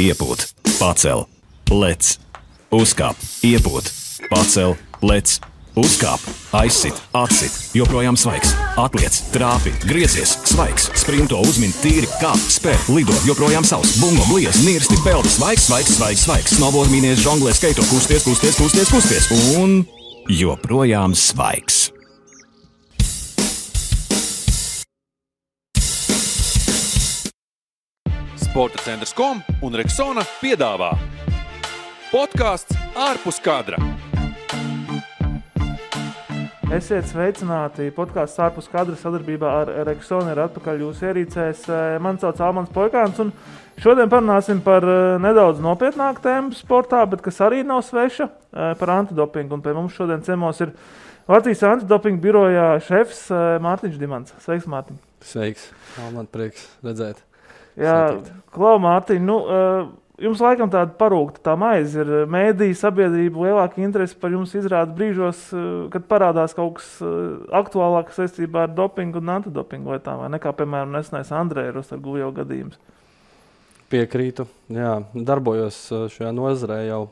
iepūt, pacel, lec, uzkāp, iepūt, pacel, lec, uzkāp, aizsit, atsit, joprojām svaigs, atliec, trāpi, griezies, svaigs, sprinto, uzmin, tīri, kāp, spēr, lido, joprojām savs, bungo, bliez, nirsti, peldi, svaigs, snowboard, mīnies, žonglē, skaito, kusties, un joprojām svaigs. Sporta centrs.com un Rexona piedāvā podcasts ārpus kadra. Esiet sveicināti, podcasts ārpus kadra sadarbībā ar Rexona ir atpakaļ jūsu ierīcēs. Man sauc Almans Poikāns un šodien parunāsim par nedaudz nopietnāku tēmu sportā, bet kas arī nav sveša, par antidopingu. Un pie mums šodien ciemos ir Latvijas antidopinga birojā šefs Mārtiņš Dimants. Sveiks, Mārtiņ. Sveiks, Alman, prieks redzēt. Jā, Klau, Mārtiņ, jums laikam tāda parūkta tā maize ir mēdīja sabiedrība lielāka interese par jums izrāda brīžos, kad parādās kaut kas aktuālāks saistībā ar dopingu un antidopingu lietām, vai nekā, piemēram, nesenais Andreja Rostargujeva gadījums. Piekrītu, jā, darbojos šajā nozarē jau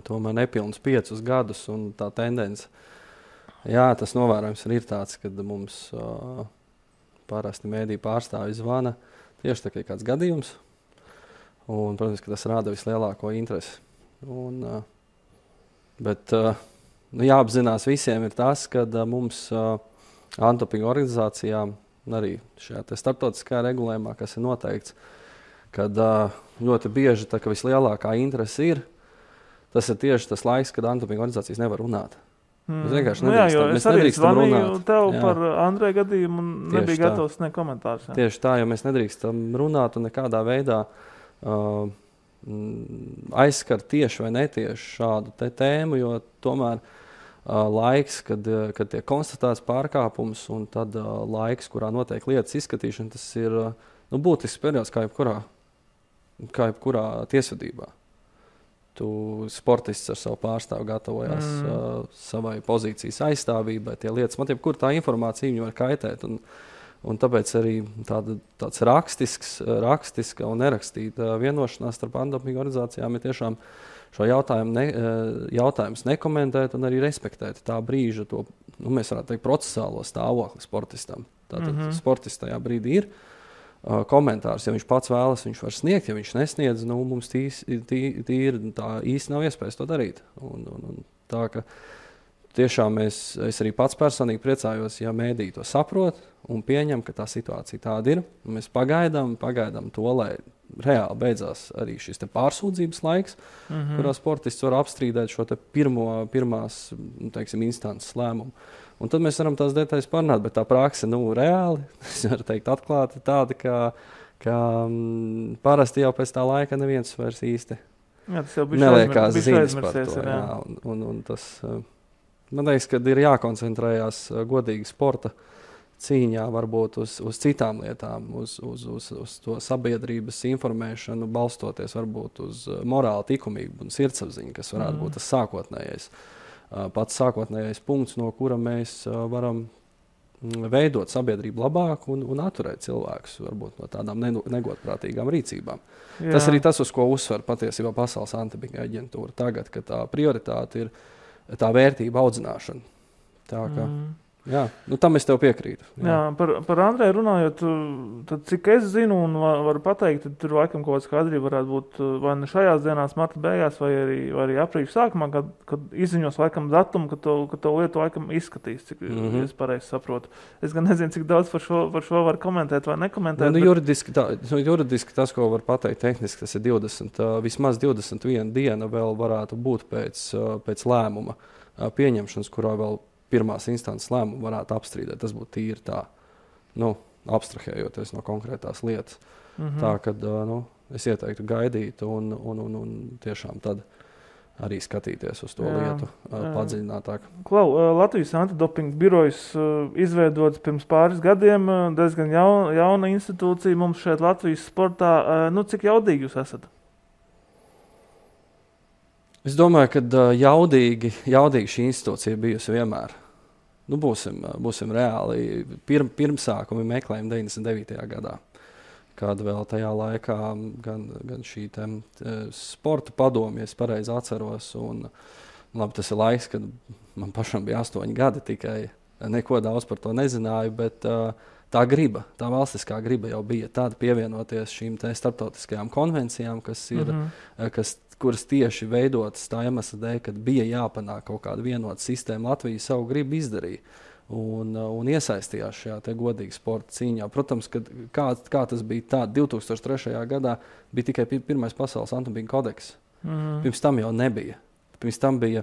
tomēr nepilnus 5 gadus, un tā tendence, jā, tas novērojums ir tāds, kad mums parasti mēdī pārstāvji zvana tieši tā kā kāds gadījums. Un, protams, ka tas rāda vislielāko interesi. Bet jāapzinās visiem ir tas, ka mums antidopinga organizācijām, arī šajā starptautiskajā regulējumā, kas ir noteikts, kad ļoti bieži tā, ka vislielākā interese ir, tas ir tieši tas laiks, kad antidopinga organizācijas nevar runāt. Mēs vienkārši nedrīkstam runāt. Tev par Andreja gadījumu un nebija gatavs ne komentārus. Jā. Tieši tā, jo mēs nedrīkstam runāt un nekādā veidā aizskart tieši vai netieši šādu tēmu, jo tomēr laiks, kad tiek konstatēts pārkāpums un tad laiks, kurā notiek lietas izskatīšana, tas ir būtisks periods kā jebkurā tiesvedībā. Tu sportists ar savu pārstāvu gatavojās savai pozīcijas aizstāvībai, tie lietas, man jebkur tā informācija viņu var kaitēt, un tāpēc arī tāds rakstiska un nerakstīta vienošanās starp antidopinga organizācijām ir tiešām šo jautājumus nekomentēt un arī respektēt tā brīža to, mēs varētu teikt, procesālo stāvokli sportistam. Tātad sportists tajā brīdī ir. Komentārs, ja viņš pats vēlas, viņš var sniegt, ja viņš nesniedz, mums tīri tā īsti nav iespējas to darīt. Un tā, ka tiešām es arī pats personīgi priecājos, ja mēdī to saprot un pieņem, ka tā situācija tāda ir. Mēs pagaidām to, lai reāli beidzās arī šis pārsūdzības laiks, kurā sportists var apstrīdēt šo pirmās, instances lēmumu. Un tad mēs varam tās detaļas parunāt, bet tā prakse, reāli, es varu teikt atklāti, tāda, ka parasti jau pēc tā laika neviens vairs īsti neliekās ziņas par to. Jā. Un tas, man liekas, ka ir jākoncentrējās godīgi sporta cīņā varbūt uz citām lietām, uz to sabiedrības informēšanu, balstoties varbūt uz morāli likumību un sirdsapziņu, kas varētu būt tas pats sākotnējais punkts, no kura mēs varam veidot sabiedrību labāk un atturēt cilvēkus varbūt no tādām negodprātīgām rīcībām. Jā. Tas arī tas, uz ko uzsver patiesībā Pasaules antidopinga aģentūra tagad, ka tā prioritāte ir tā vērtība audzināšana. Tā kā, jā, tam es tev piekrītu. Jā, par Andreju runājot, tad cik es zinu un varu pateikt, tad tur laikam kaut kāds skaidrība varētu būt vai ne šajās dienās, marta beigās, vai arī aprīļa sākumā, kad izziņos laikam datumu, ka to lietu laikam izskatīs, cik es pareizi saprotu. Es gan nezinu, cik daudz par šo var komentēt vai nekomentēt. Juridiski tas, ko var pateikt tehniski, tas ir vismaz 21 diena vēl varētu būt pēc lēmuma pieņemšanas, kurā vēl pirmās instances lēmumu varētu apstrīdēt. Tas būtu tīri tā, abstrahējoties no konkrētās lietas. Tā, kad es ieteiktu gaidīt un tiešām tad arī skatīties uz to lietu padziļinātāk. Klau, Latvijas antidopinga birojas izveidots pirms pāris gadiem, diezgan jauna institūcija mums šeit Latvijas sportā. Cik jaudīgi jūs esat? Es domāju, ka jaudīgi šī institūcija bijusi vienmēr. Būsim reāli. Pirmsākumi meklējumi 99. gadā. kad vēl tajā laikā gan šī sporta padome, ja es pareizi atceros, un labi, tas ir laiks, kad man pašam bija 8 gadi tikai, neko daudz par to nezināju, bet tā valstiskā griba jau bija tāda pievienoties šīm starptautiskajām konvencijām, kuras tieši veidotas tā iemesla dēļ, kad bija jāpanāk kaut kāda vienota sistēma. Latvija savu gribu izdarīja un iesaistījās šajā godīgā sporta cīņā. Protams, kā tas bija tā, 2003. gadā bija tikai pirmais pasaules antidopinga kodeks. Pirms tam jau nebija. Pirms tam bija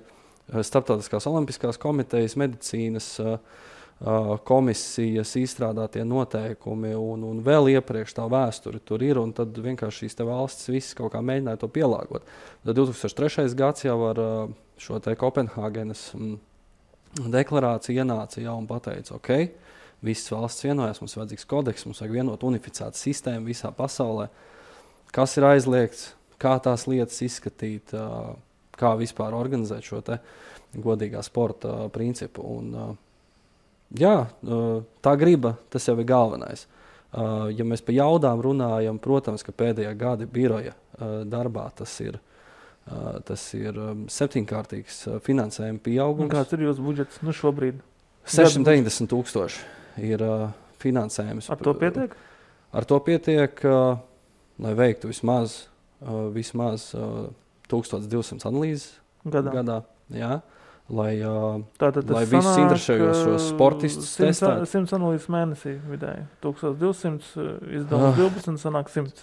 Starptautiskās olimpiskās komitejas, medicīnas komisijas izstrādātie noteikumi un vēl iepriekš tā vēsture tur ir, un tad vienkārši šīs valstis visas kaut kā mēģināja to pielāgot. Tad 2003. gads jau ar šo Kopenhāgenes deklarāciju ienāca jau un pateica, ok, visas valsts vienojās, mums vajadzīgs kodeks, mums vajag vienot unificētu sistēmu visā pasaulē, kas ir aizliegts, kā tās lietas izskatīt, kā vispār organizēt šo godīgā sporta principu. Un, tā griba, tas jau ir galvenais. Ja mēs par jaudām runājam, protams, ka pēdējā gada biroja darbā tas ir 7-kārtīgs finansējuma pieaugums. Kāds ir jūsu budžets šobrīd? 690,000 ir finansējums. Ar to pietiek? Ar to pietiek, lai veiktu vismaz 1200 analīzes gadā. Jā. Lai visus interesējošos sportistus testētu. 100 analīzes mēnesī vidēji. 1200 izdevums 12 sanāk 100.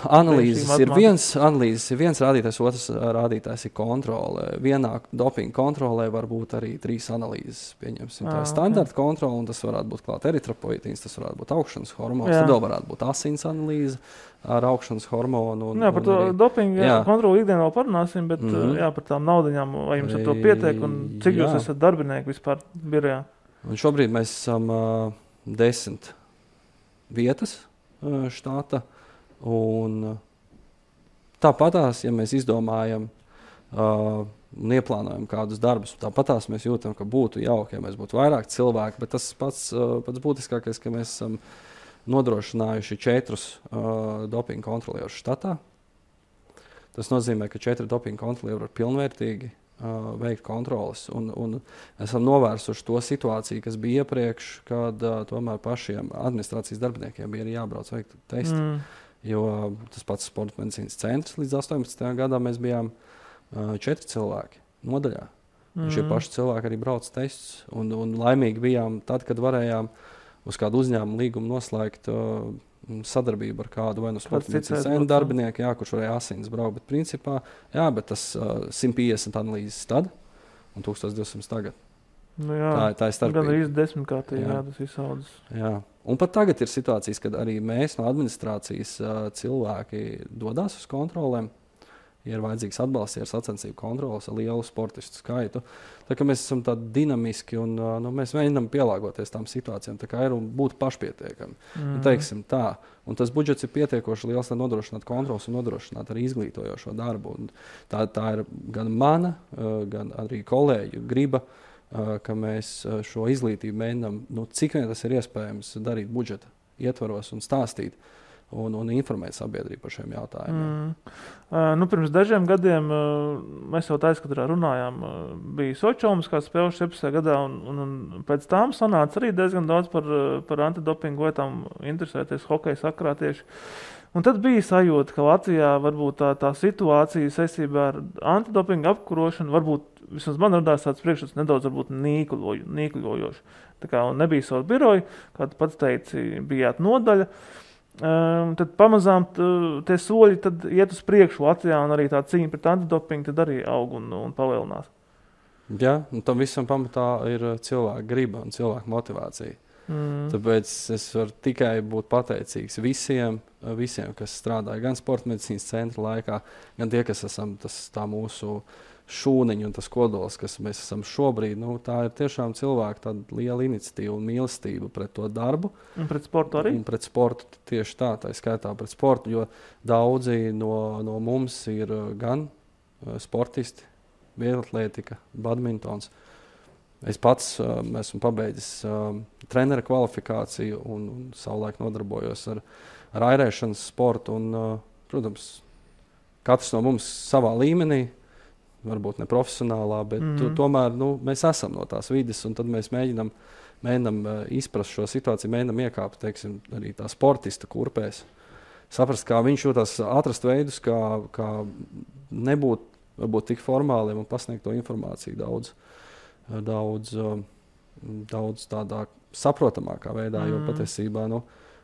Analīzes ir viens rādītājs, otrs rādītājs ir kontrole. Vienā dopinga kontrolē var būt arī 3 analīzes. Pieņemsim, tā ir standarta kontrole, un tas varētu būt klāt eritropoietīns, tas varētu būt augšanas hormons, tad vēl varētu būt asins analīze ar augšanas hormonu. Par to dopingu kontroli ikdienā vēl parunāsim, bet par tām naudaņām, vai jums ar to pietiek un cik jūs esat darbinieki vispār birojā? Un šobrīd mēs esam 10 vietas štata, un tāpatās, ja mēs izdomājam un ieplānojam kādus darbus, tāpatās mēs jūtam, ka būtu jauki, ja mēs būtu vairāk cilvēki, bet tas pats būtiskākais, ka mēs esam nodrošinājuši 4 dopinga kontrolierus štatā. Tas nozīmē, ka 4 dopinga kontrolieri var pilnvērtīgi veikt kontroles. Un esam novērsuši to situāciju, kas bija iepriekš, kad tomēr pašiem administrācijas darbiniekiem bija arī jābrauc veikt testi. Jo tas pats sporta medicīnas centrs līdz 18. gadā mēs bijām 4 cilvēki nodaļā. Šie paši cilvēki arī brauc testus. Un laimīgi bijām tad, kad varējām uz kādu uzņēmumu līgumu noslēgt sadarbību ar kādu vai no sporta medicīnas centra darbinieku, kurš varēja asins braukt, bet principā, bet tas 150 analīzes tad un 1200 tagad. Tā ir starpība. Gan arī 10-kārtīgi, tas izsaudzes. Un pat tagad ir situācijas, kad arī mēs no administrācijas cilvēki dodās uz kontrolēm. Ja ir vajadzīgs atbalsts, ja ir sacensību kontroles ar lielu sportistu skaitu. Tā kā mēs esam tādi dinamiski un mēs mēģinām pielāgoties tām situācijām, tā kā ir un būt pašpietiekami. Teiksim tā. Un tas budžets ir pietiekoši liels, lai nodrošinātu kontroles un nodrošinātu arī izglītojošo darbu. Un tā ir gan mana, gan arī kolēģu griba, ka mēs šo izglītību mēģinām, cik vien tas ir iespējams darīt budžeta ietvaros un stāstīt. Un informēt sabiedrību par šiem jautājumiem. Pirms dažiem gadiem mēs jau aizkadrā runājām, bija Sočomas kā spēles 17. gadā, un pēc tām sanāca arī diezgan daudz par antidopingu lietām interesēties hokeja sakarā tieši. Un tad bija sajūta, ka Latvijā varbūt tā situācija saistībā ar antidopingu apkarošanu, varbūt vismaz man radās tāds priekšstats nedaudz varbūt nīkļojoši. Tā kā nebija savu biroju, kā tu pats teici, bijāt nodaļa. Tad pamazām tie soļi tad iet uz priekšu Latvijā, un arī tā cīņa pret antidopingu tad arī aug un palielinās. Un tam visam pamatā ir cilvēka griba un cilvēka motivācija. Tāpēc es varu tikai būt pateicīgs visiem, kas strādāja gan sporta medicīnas centra laikā, gan tie, kas esam tā mūsu šūniņa un tas kodols, kas mēs esam šobrīd, tā ir tiešām cilvēka tāda liela iniciatīva un mīlestība pret to darbu. Un pret sportu arī? Un pret sportu tieši tā skaitā pret sportu, jo daudzi no mums ir gan sportisti, vieglatlētika, badmintons. Es pats esmu pabeidzis trenera kvalifikāciju un savulaik nodarbojos ar airēšanas sportu. Un, protams, katrs no mums savā līmenī, varbūt ne profesionālā, bet tomēr mēs esam no tās vides, un tad mēs mēģinam izprast šo situāciju, mēģinam iekāpt, teiksim, arī tā sportista kurpēs. Saprast, kā viņš jūtas, atrast veidus, kā nebūt varbūt tik formāliem un pasniegt to informāciju daudz tādā saprotamākā veidā, jo patiesībā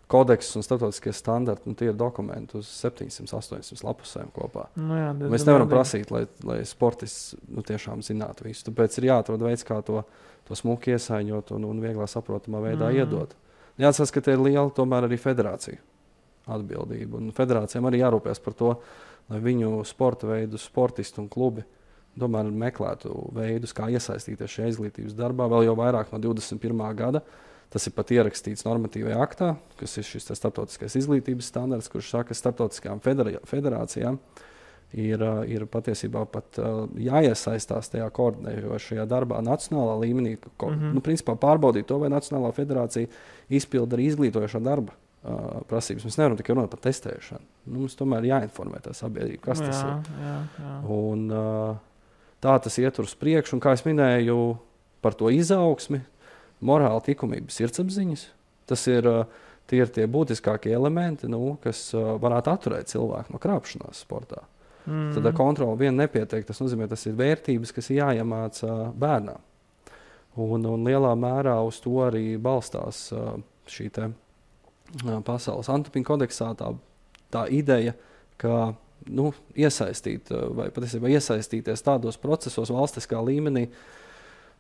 kodeks un starptautiskie standarti, tie ir dokumenti uz 700-800 lapusēm kopā. Mēs nevaram prasīt, lai sportists tiešām zinātu visu. Tāpēc ir jāatrod veids, kā to smuki iesaiņot un vieglā saprotamā veidā iedot. Jāatcerās, ka te ir liela tomēr arī federācija atbildība. Un federācijām arī jārūpēs par to, lai viņu sporta veidu, sportisti un klubi tomēr meklētu veidus, kā iesaistīties šajā izglītības darbā, vēl jau vairāk no 21. gada. Tas ir pat ierakstīts normatīvajā aktā, kas ir šis starptautiskais izglītības standarts, kurš saka, ka starptautiskajām federācijām ir patiesībā pat jāiesaistās tajā koordinējošajā darbā nacionālā līmenī, principā pārbaudīt to, vai Nacionālā federācija izpilda arī izglītojošā darba prasības. Mēs nevaram tikai runāt par testēšanu. Mums tomēr jāinformē tā sabiedrība, kas tas ir. Un tā tas iet uz priekšu, un kā es minēju par to izaugsmi, morāla likumības sirdsapziņas. Tie ir tie būtiskākie elementi, kas varētu atturēt cilvēku no krāpšanās sportā. Tad kontrola vien nepietiek. Tas nozīmē, tas ir vērtības, kas ir jāiemāca bērnām. Un lielā mērā uz to arī balstās šī te pasaules antidopinga kodeksā tā ideja, ka iesaistīt vai patiesībā iesaistīties tādos procesos valstiskā līmenī,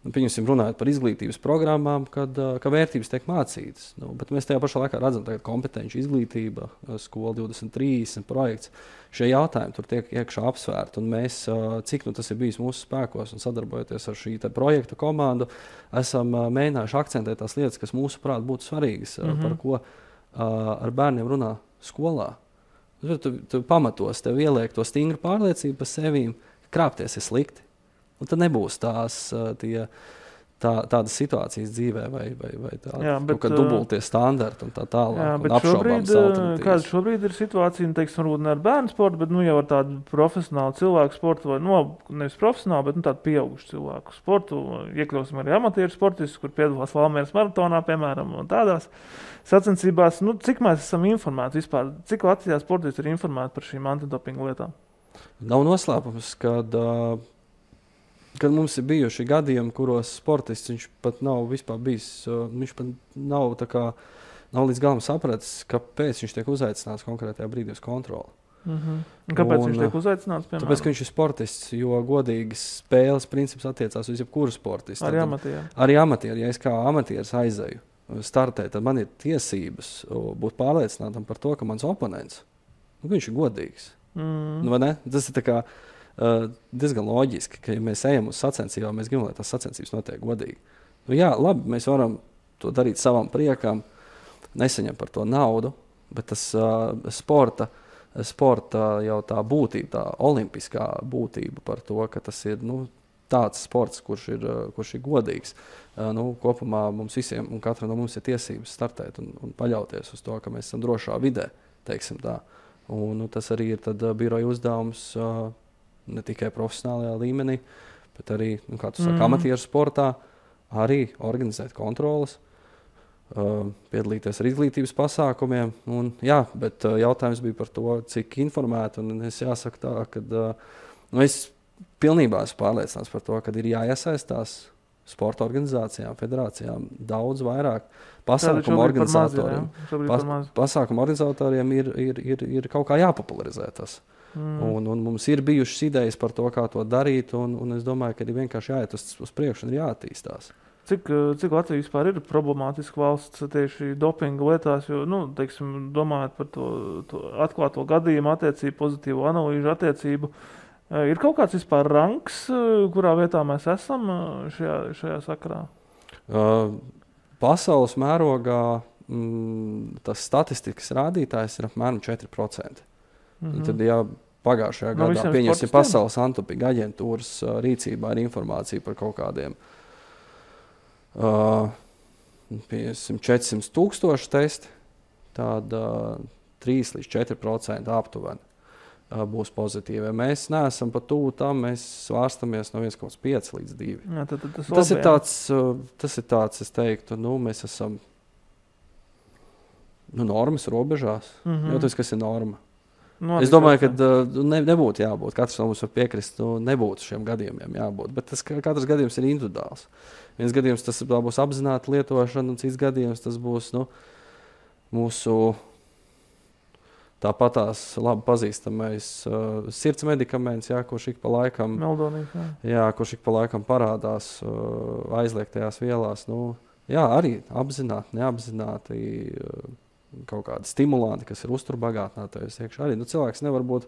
pieņemsim, runājot par izglītības programmām, ka vērtības tiek mācītas. Bet mēs tajā pašā laikā redzam, ka kompetenci izglītība, skola 2030 projekts, šie jautājumi tur tiek iekšā apsvērti. Un mēs, cik tas ir bijis mūsu spēkos un sadarbojoties ar šī projekta komandu, esam mēģinājuši akcentēt tās lietas, kas mūsuprāt būtu svarīgas, par ko ar bērniem runā skolā. Tu pamatos, tev ieliek to stingru pārliecību par sevīm, krāpties ir slikti. Un tad nebūs tādas situācijas dzīvē vai dubultie standarti un tā tālāk. Jā, bet kāda šobrīd ir situācija, teiksim, varbūt ne ar bērnu sportu, bet jau ar tādu profesionālu cilvēku sportu, vai nevis profesionālu, bet tādu pieaugušu cilvēku sportu. Iekļausim arī amatieru sportistus, kur piedalās Valmieras maratonā, piemēram, un tādās sacensībās. Cik mēs esam informēti vispār? Cik Latvijā sportisti ir informēti par šīm antidopinga lietām? Nav noslēpums, kad mums ir bijuši gadījumi, kuros sportists viņš pat nav vispār bijis, viņš pat nav līdz galam sapratis, kāpēc viņš tiek uzaicināts konkrētajā brīdī uz kontroli. Kāpēc viņš tiek uzaicināts? Piemēram? Tāpēc, ka viņš ir sportists, jo godīgas spēles princips attiecās uz jebkuru sportistu. Arī amatieri. Arī amatieri. Ja es kā amatieris aizēju startēt, tad man ir tiesības būt pārliecinātam par to, ka mans oponents, viņš ir godīgs. Vai ne? Tas ir tā kā diezgan loģiski, ka ja mēs ejam uz sacensībām, mēs gribam, lai tās sacensības notiek godīgi. Jā, labi, mēs varam to darīt savam priekam, nesaņem par to naudu, bet tas sporta jau tā būtība, tā olimpiskā būtība par to, ka tas ir tāds sports, kurš ir godīgs. Kopumā mums visiem un katra no mums ir tiesības startēt un paļauties uz to, ka mēs esam drošā vidē, teiksim tā. Un tas arī ir tad biroja uzdevums ne tikai profesionālajā līmenī, bet arī, kā tu saki, amatieru sportā, arī organizēt kontroles, piedalīties ar izglītības pasākumiem. Bet jautājums bija par to, cik informēti, un es jāsaka tā, ka es pilnībā esmu pārliecināts par to, ka ir jāiesaistās sporta organizācijām, federācijām daudz vairāk. Pasākumu organizatoriem ir kaut kā jāpopularizē tas. Un mums ir bijušas idejas par to, kā to darīt, un es domāju, ka ir vienkārši jāiet uz priekšu un ir jāattīstās. Cik Latvija vispār ir problemātiska valsts tieši dopinga lietās, jo, teiksim, domājot par to atklāto gadījumu attiecību, pozitīvo analīžu attiecību, ir kaut kāds vispār ranks, kurā vietā mēs esam šajā sakarā? Pasaules mērogā tas statistikas rādītājs ir apmēram 4%. Tad, ja pagājušajā gadā pieņemsim Pasaules antidopinga aģentūras rīcībā ir informācija par kaut kādiem 400 000 testi, tad 3 līdz 4% aptuveni būs pozitīvi. Mēs neesam pat tuvu tam, mēs svārstamies no 1,5 līdz 2. Jā, tad Tas ir tāds, es teiktu, mēs esam normas robežās. Jūtas, kas ir norma. Es domāju, ka nebūtu jābūt. Katrs no mums var piekrist, nebūtu šiem gadījumiem jābūt. Bet katrs gadījums ir individuāls. Viens gadījums tas būs apzināta lietošana, un cits gadījums tas būs mūsu tāpatās labi pazīstamais sirds medikaments, kurš ik pa laikam, kurš ik pa laikam parādās aizliegtajās vielās. Arī apzināti, neapzināti kaut kādi stimulanti, kas ir uzturbagātinātājs iekšā. Arī cilvēks nevar būt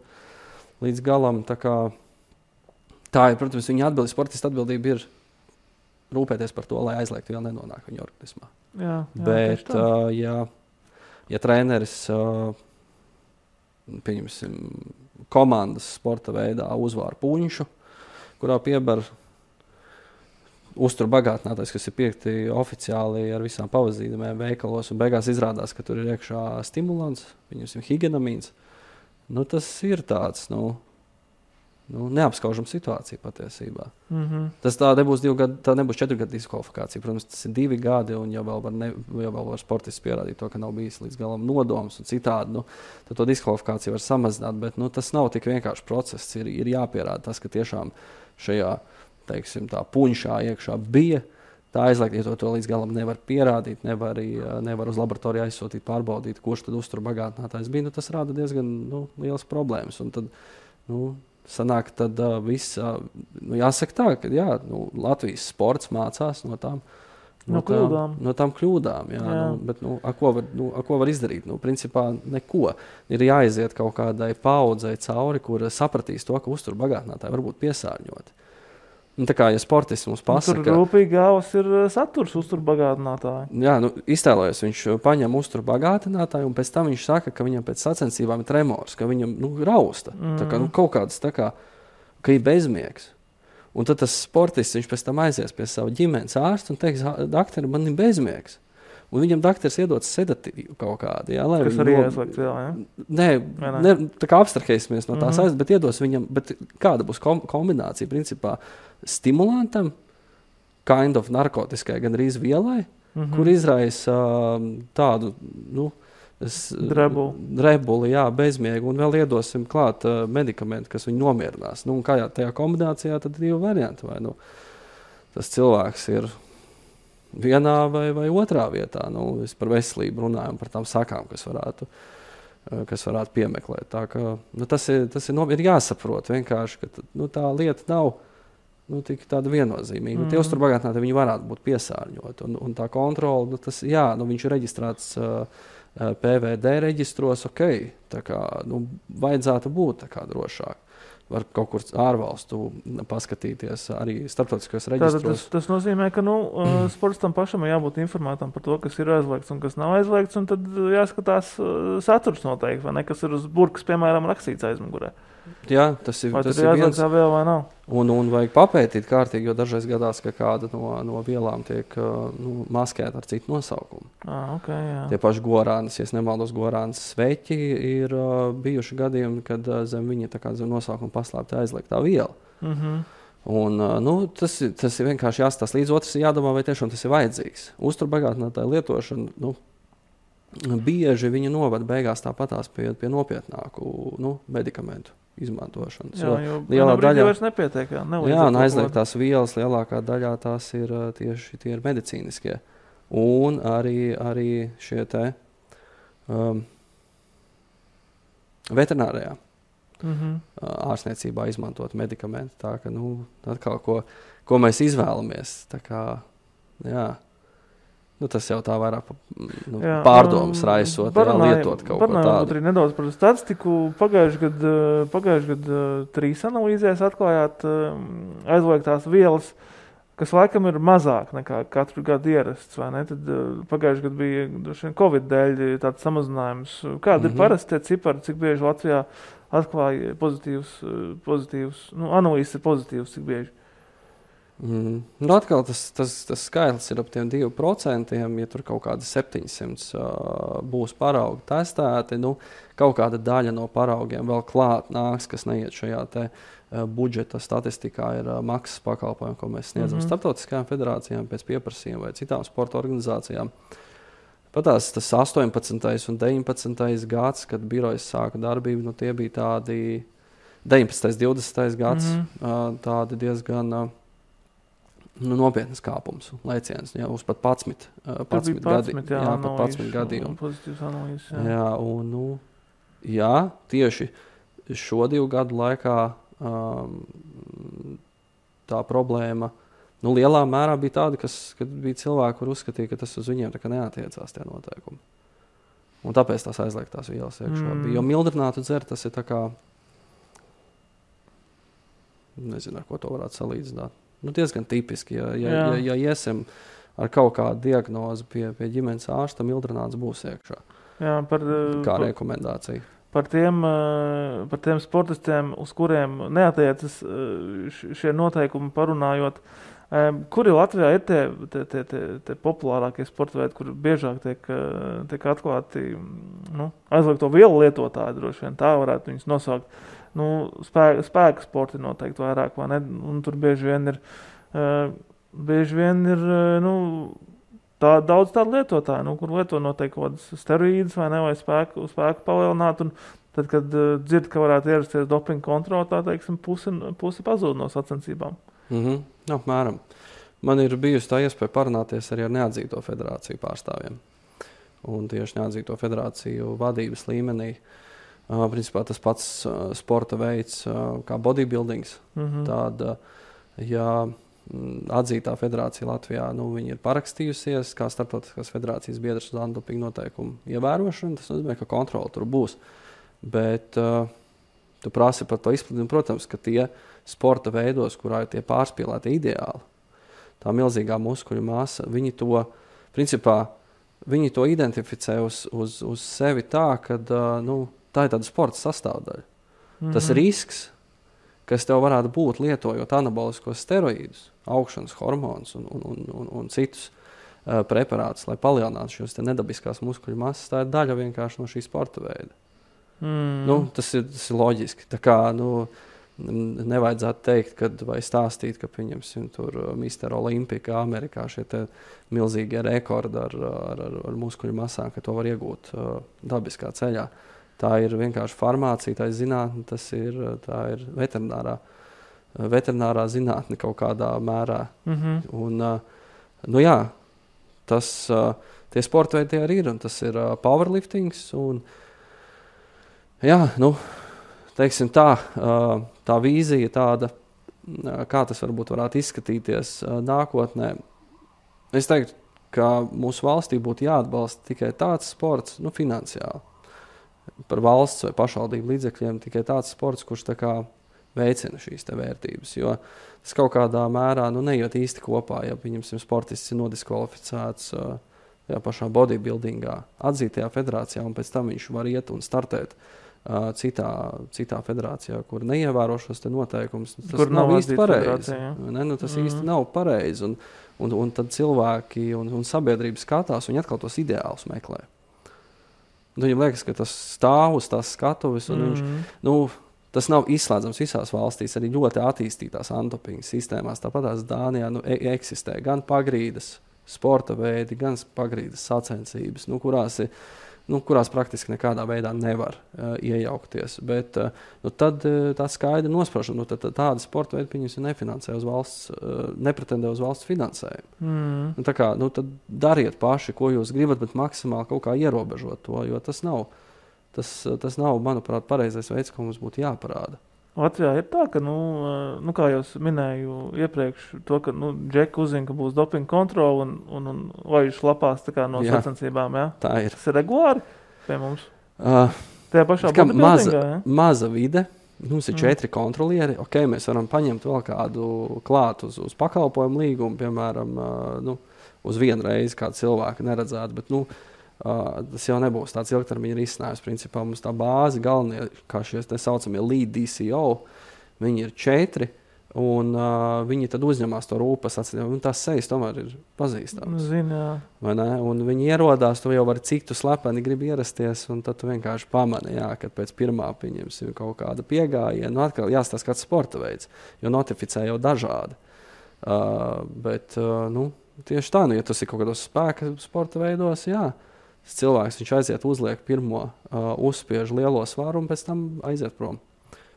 līdz galam. Tā ir, protams, viņa sportista atbildība ir rūpēties par to, lai aizliegtu vēl nenonāk viņa organismā. Bet, ja treneris pieņemsim komandas sporta veidā uzvāra puņšu, kurā piebar uzturbagātinātājs, kas ir piekti oficiāli ar visām pavazīmēm veikalos, un beigās izrādās, ka tur ir iekšā stimulants, pieņemsim higenamīns. Tas ir tāds, neapskaužama situācija patiesībā. Tā nebūs 2 gadu, tā nebūs 4 gadu diskvalifikācija. Protams, tas ir 2 gadi, un jau vēl var sportists pierādīt to, ka nav bijis līdz galam nodoms un citādi. Tad to diskvalifikāciju var samazināt, bet tas nav tik vienkārši process. Ir jāpierāda tas, ka tiešām šajā, teiksim, tā puņšā iekšā bija tā aizliegta, ja to līdz galam nevar pierādīt, nevar uz laboratoriju aizsūtīt, pārbaudīt, kurš tad uzturbagātinātājs bija. Tas rada diezgan lielas problēmas. Un tad, sanāk, tad viss, jāsaka tā, ka Latvijas sports mācās no tām kļūdām. Bet ko var izdarīt? Principā neko. Ir jāiziet kaut kādai paudzei cauri, kur sapratīs to, ka uzturbagātinātāji var būt piesārņoti. Tā kā, ja sportists mums pasaka... Tur rūpīgi gāvas ir saturs uzturbagātinātāji. Jā, iztēlojas, viņš paņem uzturbagātinātāju, un pēc tam viņš saka, ka viņam pēc sacensībām ir tremors, ka viņam rausta. Tā kā, kaut kāds ka ir bezmiegs. Un tad tas sportists, viņš pēc tam aizies pie sava ģimenes ārsta un teiks, dakteri, man ir bezmiegs. Un viņam dakteris iedots sedatīvu kaut kādu. Kas arī aizliegts vēl, Nē, tā kā abstrahēsimies no tās aizliegts, bet iedos viņam, bet kāda būs kombinācija, principā, stimulantam, kind of narkotiskai, gan arī vielai, kur izraisa tādu, drebuli, bezmiegu, un vēl iedosim klāt medikamentu, kas viņu nomierinās. Un kā tajā kombinācijā, tad 2 varianti, vai tas cilvēks ir vienā vai otrā vietā. Es par veselību runājam, par tām sakām, kas varētu piemeklēt. Tā ka, tas ir jāsaprot vienkārši, ka tā lieta nav tik tāda viennozīmīga. Tie uzturbagātinātāji, viņi varētu būt piesārņoti. Un tā kontrola, viņš ir reģistrēts PVD reģistros, tā kā, vajadzētu būt tā kā drošāk. Var kaut kur ārvalstu paskatīties arī starptautiskajos reģistros. Tas nozīmē, ka sportistam pašam ir jābūt informētam par to, kas ir aizliegts un kas nav aizliegts, un tad jāskatās saturs noteikti, vai ne, kas ir uz burkas, piemēram, rakstīts aizmugurē. Jā, tas ir viens. Vēl vai nav? Un vajag papētīt kārtīgi, jo dažreiz gadās, ka kāda no vielām tiek maskēta ar citu nosaukumu. Jā. Tie paši gorānis, ja es nemaldos, gorānis sveķi ir bijuši gadījumi, kad zem viņa tā kā zem nosaukuma paslēpta aizliegtā viela. Un, tas ir vienkārši jāstās līdz, otrs ir jādomā, vai tiešām tas ir vajadzīgs. Uzturbagātinātāja lietošana, bieži viņa novada beigās tāpatās pie nopietnāku medikamentu izmantošanas. Jo lielā daļā vairs nepietiek. Un aizliegtās vielas lielākā daļā tās ir tieši tie ir medicīniskie. Un arī šie te veterinārajā ārstniecībā izmantot medikamenti. Tā ka, atkal, ko mēs izvēlamies. Tā kā, tas jau tā vairāk pārdomas raisot, lietot kaut ko tādu. Arī nedaudz par statistiku. Pagājuši gadu 3 analīzēs atklājāt aizliegtās vielas, kas laikam ir mazāk nekā katru gadu ierasts, vai ne? Tad pagājuši gadu bija Covid dēļ tāds samazinājums. Kāda ir parasti tie cipari, cik bieži Latvijā atklāja pozitīvs analīzes ir pozitīvs, cik bieži? Nu atkal tas skaitlis ir ap tiem 2%, ja tur kaut kādi 700 būs paraugi testēti, nu, kaut kāda daļa no paraugiem vēl klāt nāks, kas neiet šajā te budžeta statistikā, ir maksas pakalpojumi, ko mēs sniedzam starptautiskajām federācijām pēc pieprasījuma vai citām sporta organizācijām. Patās tas 18. un 19. gads, kad birojas sāka darbību, nu, tie bija tādi 19. 20. gads, tādi diezgan nopietnas kāpums, lēciens, jā, uz pat 11 gadījumu. Jā, un, jā, tieši šo 2 gadu laikā tā problēma, lielā mērā bija tāda, kad bija cilvēki, kur uzskatīja, ka tas uz viņiem tā kā neatiecās tie noteikumi. Un tāpēc tās aizliegtās vielas iekšā bija. Jo mildrinātu dzert, tas ir tā kā, nezinu, ar ko to varētu salīdzināt. Diezgan tipiski, ja iesim ar kaut kādu diagnozi pie ģimenes ārsta, mildrināts būs iekšā. Jā, kā rekomendācija. Par tiem sportistiem, uz kuriem neatiecas šie noteikumi parunājot, kuri Latvijā ir tie populārākie sporta veidi, kur biežāk tiek atklāti aizliegto vielu lietotāji, droši vien tā varētu viņus nosaukt. Spēka sporti noteikti vairāk, vai ne? Un tur bieži vien ir daudz tādu lietotāju, kur lieto noteikti kaut kādas steroīdas vai ne, vai spēku palielināt. Un tad, kad dzird, ka varētu ierasties dopinga kontrola, tā teiksim, pusi pazūd no sacensībām. Apmēram. Man ir bijusi tā iespēja parunāties arī ar neatzīto federāciju pārstāvjiem. Un tieši neatzīto federāciju vadības līmenī. Principā tas pats sporta veids kā bodybuildings. Tad, ja atzītā federācija Latvijā, viņi ir parakstījusies kā starptautiskās federācijas biedrs uz antidopinga noteikumu ievērošanu, tas nozīmē, ka kontrola tur būs. Bet tu prasi par to izplatījumu, protams, ka tie sporta veidos, kurā ir tie pārspīlēti ideāli, tā milzīgā muskuļu masa, viņi to identificē uz sevi tā, ka tā ir tāda sporta sastāvdaļa. Tas risks, kas tev varētu būt lietojot anaboliskos steroīdus, augšanas hormonus un citus preparātus, lai palielinātu šos nedabiskās muskuļu masas, tā ir daļa vienkārši no šī sporta veida. Tas ir loģiski. Tā kā, nevajadzētu teikt, vai stāstīt, ka pieņemsim tur Mr. Olympika Amerikā šie te milzīgie rekordi ar muskuļu masām, ka to var iegūt dabiskā ceļā. Tā ir vienkārši farmācija, tā ir zinātne, tā ir veterinārā zinātne kaut kādā mērā. Un, tie sporta veidi arī ir, un tas ir powerliftings. Un, teiksim tā vīzija tāda, kā tas varētu izskatīties nākotnē. Es teiktu, ka mūsu valstī būtu jāatbalsta tikai tāds sports, finansiāli. Par valsts vai pašvaldību līdzekļiem tikai tāds sports, kurš tā kā veicina šīs te vērtības, jo tas kaut kādā mērā neiet īsti kopā, ja pieņemsim sportists ir nodiskvalificēts pašā bodybuildingā, atzītajā federācijā, un pēc tam viņš var iet un startēt citā federācijā, kur neievēro šos te noteikumus. Tas nav īsti pareizi. Tas īsti nav pareizi, un tad cilvēki un sabiedrība skatās, un atkal tos ideālus meklē. Viņam liekas, ka tas stāv uz tās skatuves, un viņš, tas nav izslēdzams visās valstīs, arī ļoti attīstītās antidopinga sistēmās. Tāpat tās Dānijā eksistē gan pagrīdes sporta veidi, gan pagrīdes sacensības, kurās praktiski nekādā veidā nevar iejaukties. Bet tad tā skaidri nosprašana, tāda sporta veida pieņemsim nefinansē uz valsts, nepretendē uz valsts finansējumu. Tā kā, tad dariet paši, ko jūs gribat, bet maksimāli kaut kā ierobežot to, jo tas nav, manuprāt, pareizais veids, ko mums būtu jāparāda. Latvijā ir tā, ka, kā jau minēju iepriekš, to, ka Džeki uzzina, ka būs dopinga kontrola un laiž lapās tā kā no sacensībām, jā? Tā ir. Tas ir regulāri pie mums? Tajā pašā bodybuildingā, jā? Maza vide. Mums ir 4 kontrolieri. Mēs varam paņemt vēl kādu klāt uz pakalpojumu līgumu, piemēram, uz vienu reizi kādu cilvēku neredzētu, bet, tas jau nebūs tāds ilgtermiņa risinājums. Principā mums tā bāze galvenie, kā šie te saucamie lead DCO, viņi ir 4, Un viņi tad uzņemās to rūpas acīm, un tās sejas tomēr ir pazīstamas. Vai ne? Un viņi ierodās, tu jau vari cik tu slepeni gribi ierasties, un tad tu vienkārši pamani, kad pēc pirmā pieņemsim kaut kāda piegājiena. Nu, atkal jāstāsta kāds sporta veids, jo notificē jau dažādi. Bet tieši tā, ja tas ir kaut kādos spēka sporta veidos, tas cilvēks, viņš aiziet, uzliek pirmo, uzspiež lielo svaru un pēc tam aiziet prom.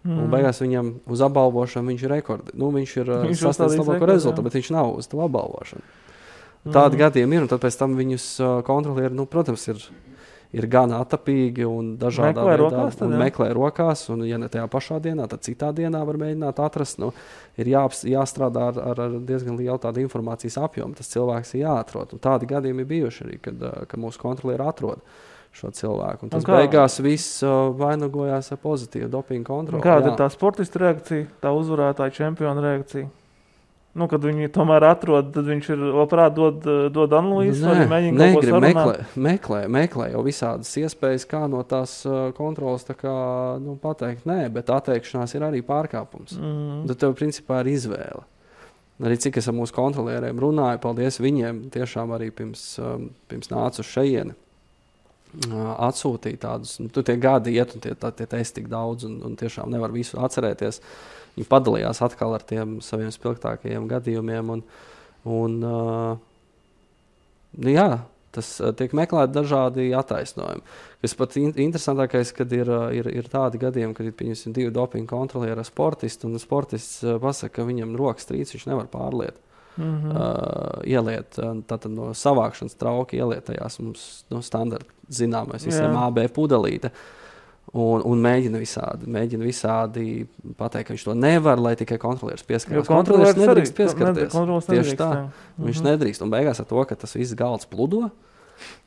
Un beigās viņam uz apbalvošanu viņš ir rekordi. Viņš ir sasniedzis labāko rezultātu, bet viņš nav uz to apbalvošanu. Tādi gadījumi ir, un tad pēc tam viņus kontrolieri, protams, ir gan atapīgi un dažādā veidā. Meklē rokās, un ja ne tajā pašā dienā, tad citā dienā var mēģināt atrast. Ir jāstrādā ar diezgan lielu tādu informācijas apjomu. Tas cilvēks ir jāatrod. Un tādi gadījumi ir bijuši arī, kad mūsu kontrolieri atrod šo cilvēku. Un tas beigās viss vainagojās ar pozitīvu dopingu kontroli. Kāda ir tā sportista reakcija, tā uzvarētāja čempiona reakcija? Kad viņi tomēr atrod, tad viņš ir labprāt dod analīzes, vai mēģina kaut ko sarunāt? Meklē jau visādas iespējas, kā no tās kontrolas pateikt nē, bet atteikšanās ir arī pārkāpums. Tad tev principā ir izvēle. Arī cik es ar mūsu kontrolieriem runāju, paldies viņiem, tiešām arī pirms nācu uz šejieni. Atsūtīja tādus, tie gadi iet un tie testi tik daudz un tiešām nevar visu atcerēties. Viņi padalījās atkal ar tiem saviem spilgtākajiem gadījumiem tas tiek meklēti dažādi attaisnojumi. Kas pat interesantākais, kad ir tādi gadījumi, kad ir pieņemsim 2 dopinga kontrolieri ar sportistu un sportists pasaka, ka viņam rokas trīc, viņš nevar pārliet. Ieliet tātad no savākšanas trauki ieliet tajās mums standarta zināmais visiem AB pudelīte un mēģina visādi pateikt, ka viņš to nevar, lai tikai kontrolieris pieskarās. Kontrolieris nedrīkst pieskarties. Tieši tā. Viņš nedrīkst. Un beigās ar to, ka tas viss galds pludo,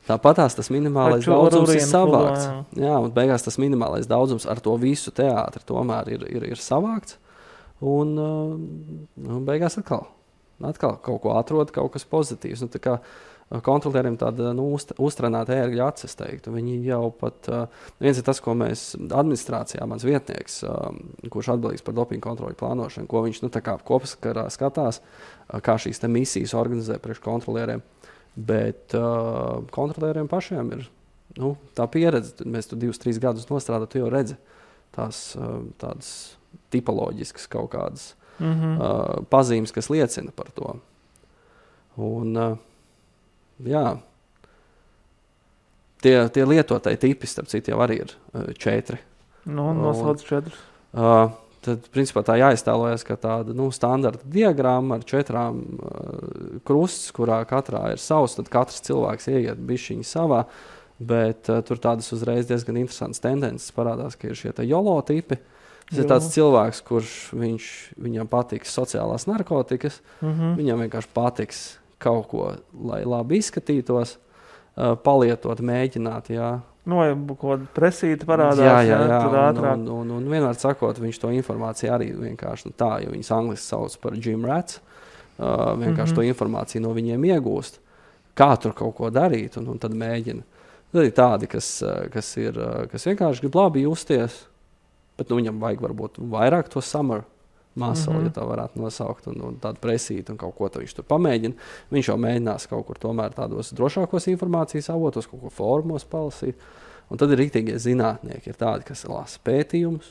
tāpatās tas minimālais daudzums ir savākts. Un beigās tas minimālais daudzums ar to visu teātri tomēr ir savākts. Un beigās atkal kaut ko atrod, kaut kas pozitīvs. Tā kā kontrolieriem tāda uztrenēta ērgļa acis, teiktu. Viņi jau pat, viens ir tas, ko mēs administrācijā, mans vietnieks, kurš atbildīgs par dopingu kontroļu plānošanu, ko viņš kopskarā skatās, kā šīs te misijas organizē priekš kontrolieriem. Bet kontrolieriem pašiem ir tā pieredze. Mēs tu 2-3 gadus nostrādāt, tu jau redzi tādas tipoloģiskas kaut kādas pazīmes, kas liecina par to. Un, tie lietotāji tipi, starp citu, jau arī ir 4. Nosauc 4. Tad, principā, tā jāiztēlojas, ka tāda standarta diagramma ar 4 krusts, kurā katrā ir savs, tad katrs cilvēks ieiet bišķiņi savā, bet tur tādas uzreiz diezgan interesantas tendences parādās, ka ir šie YOLO tipi. Tas ir tāds cilvēks, kurš viņam patiks sociālās narkotikas, viņam vienkārši patiks kaut ko, lai labi izskatītos, palietot, mēģināt, vai kaut kāda presīta parādās, tur ātrāk. Un vienmēr sakot, viņš to informāciju arī vienkārši jo viņas angliski sauc par gym rats, vienkārši to informāciju no viņiem iegūst, kā tur kaut ko darīt, un tad mēģina. Tad ir tādi, kas vienkārši grib labi justies, bet viņam vajag varbūt vairāk to summer muscle, ja tā varētu nosaukt, un tādu presītu un kaut ko viņš tur pamēģina. Viņš jau mēģinās kaut kur tomēr tādos drošākos informācijas avotos, kaut ko formos palasīt. Un tad ir riktīgie zinātnieki, ir tādi, kas lasa pētījumus,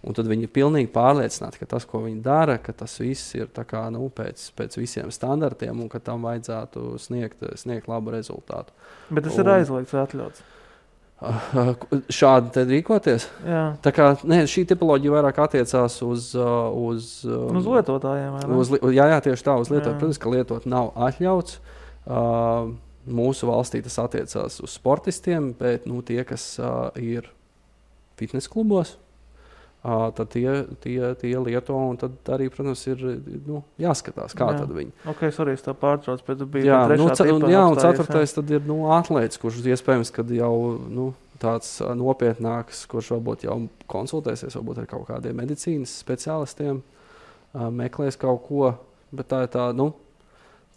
un tad viņi ir pilnīgi pārliecināti, ka tas, ko viņi dara, ka tas viss ir tā kā, pēc visiem standartiem un ka tam vajadzētu sniegt labu rezultātu. Bet tas ir aizliegts vai atļauts? Šādi tad rīkoties? Jā. Tā kā, šī tipoloģija vairāk attiecās uz lietotājiem, vai ne? Jā, tieši tā, uz lietotājiem. Protams, ka lietot nav atļauts. Mūsu valstī tas attiecās uz sportistiem, bet tie, kas ir fitnes klubos, tad tie lieto, un tad arī, protams, ir jāskatās, kā tad viņi. Ok, sorry, es tā pārtrauc, bet tu biji trešā tipā. Un 4. tad ir atlēts, kurš iespējams, kad jau tāds nopietnāks, kurš varbūt jau konsultēsies, varbūt ar kaut kādiem medicīnas speciālistiem, meklēs kaut ko, bet tā ir tā,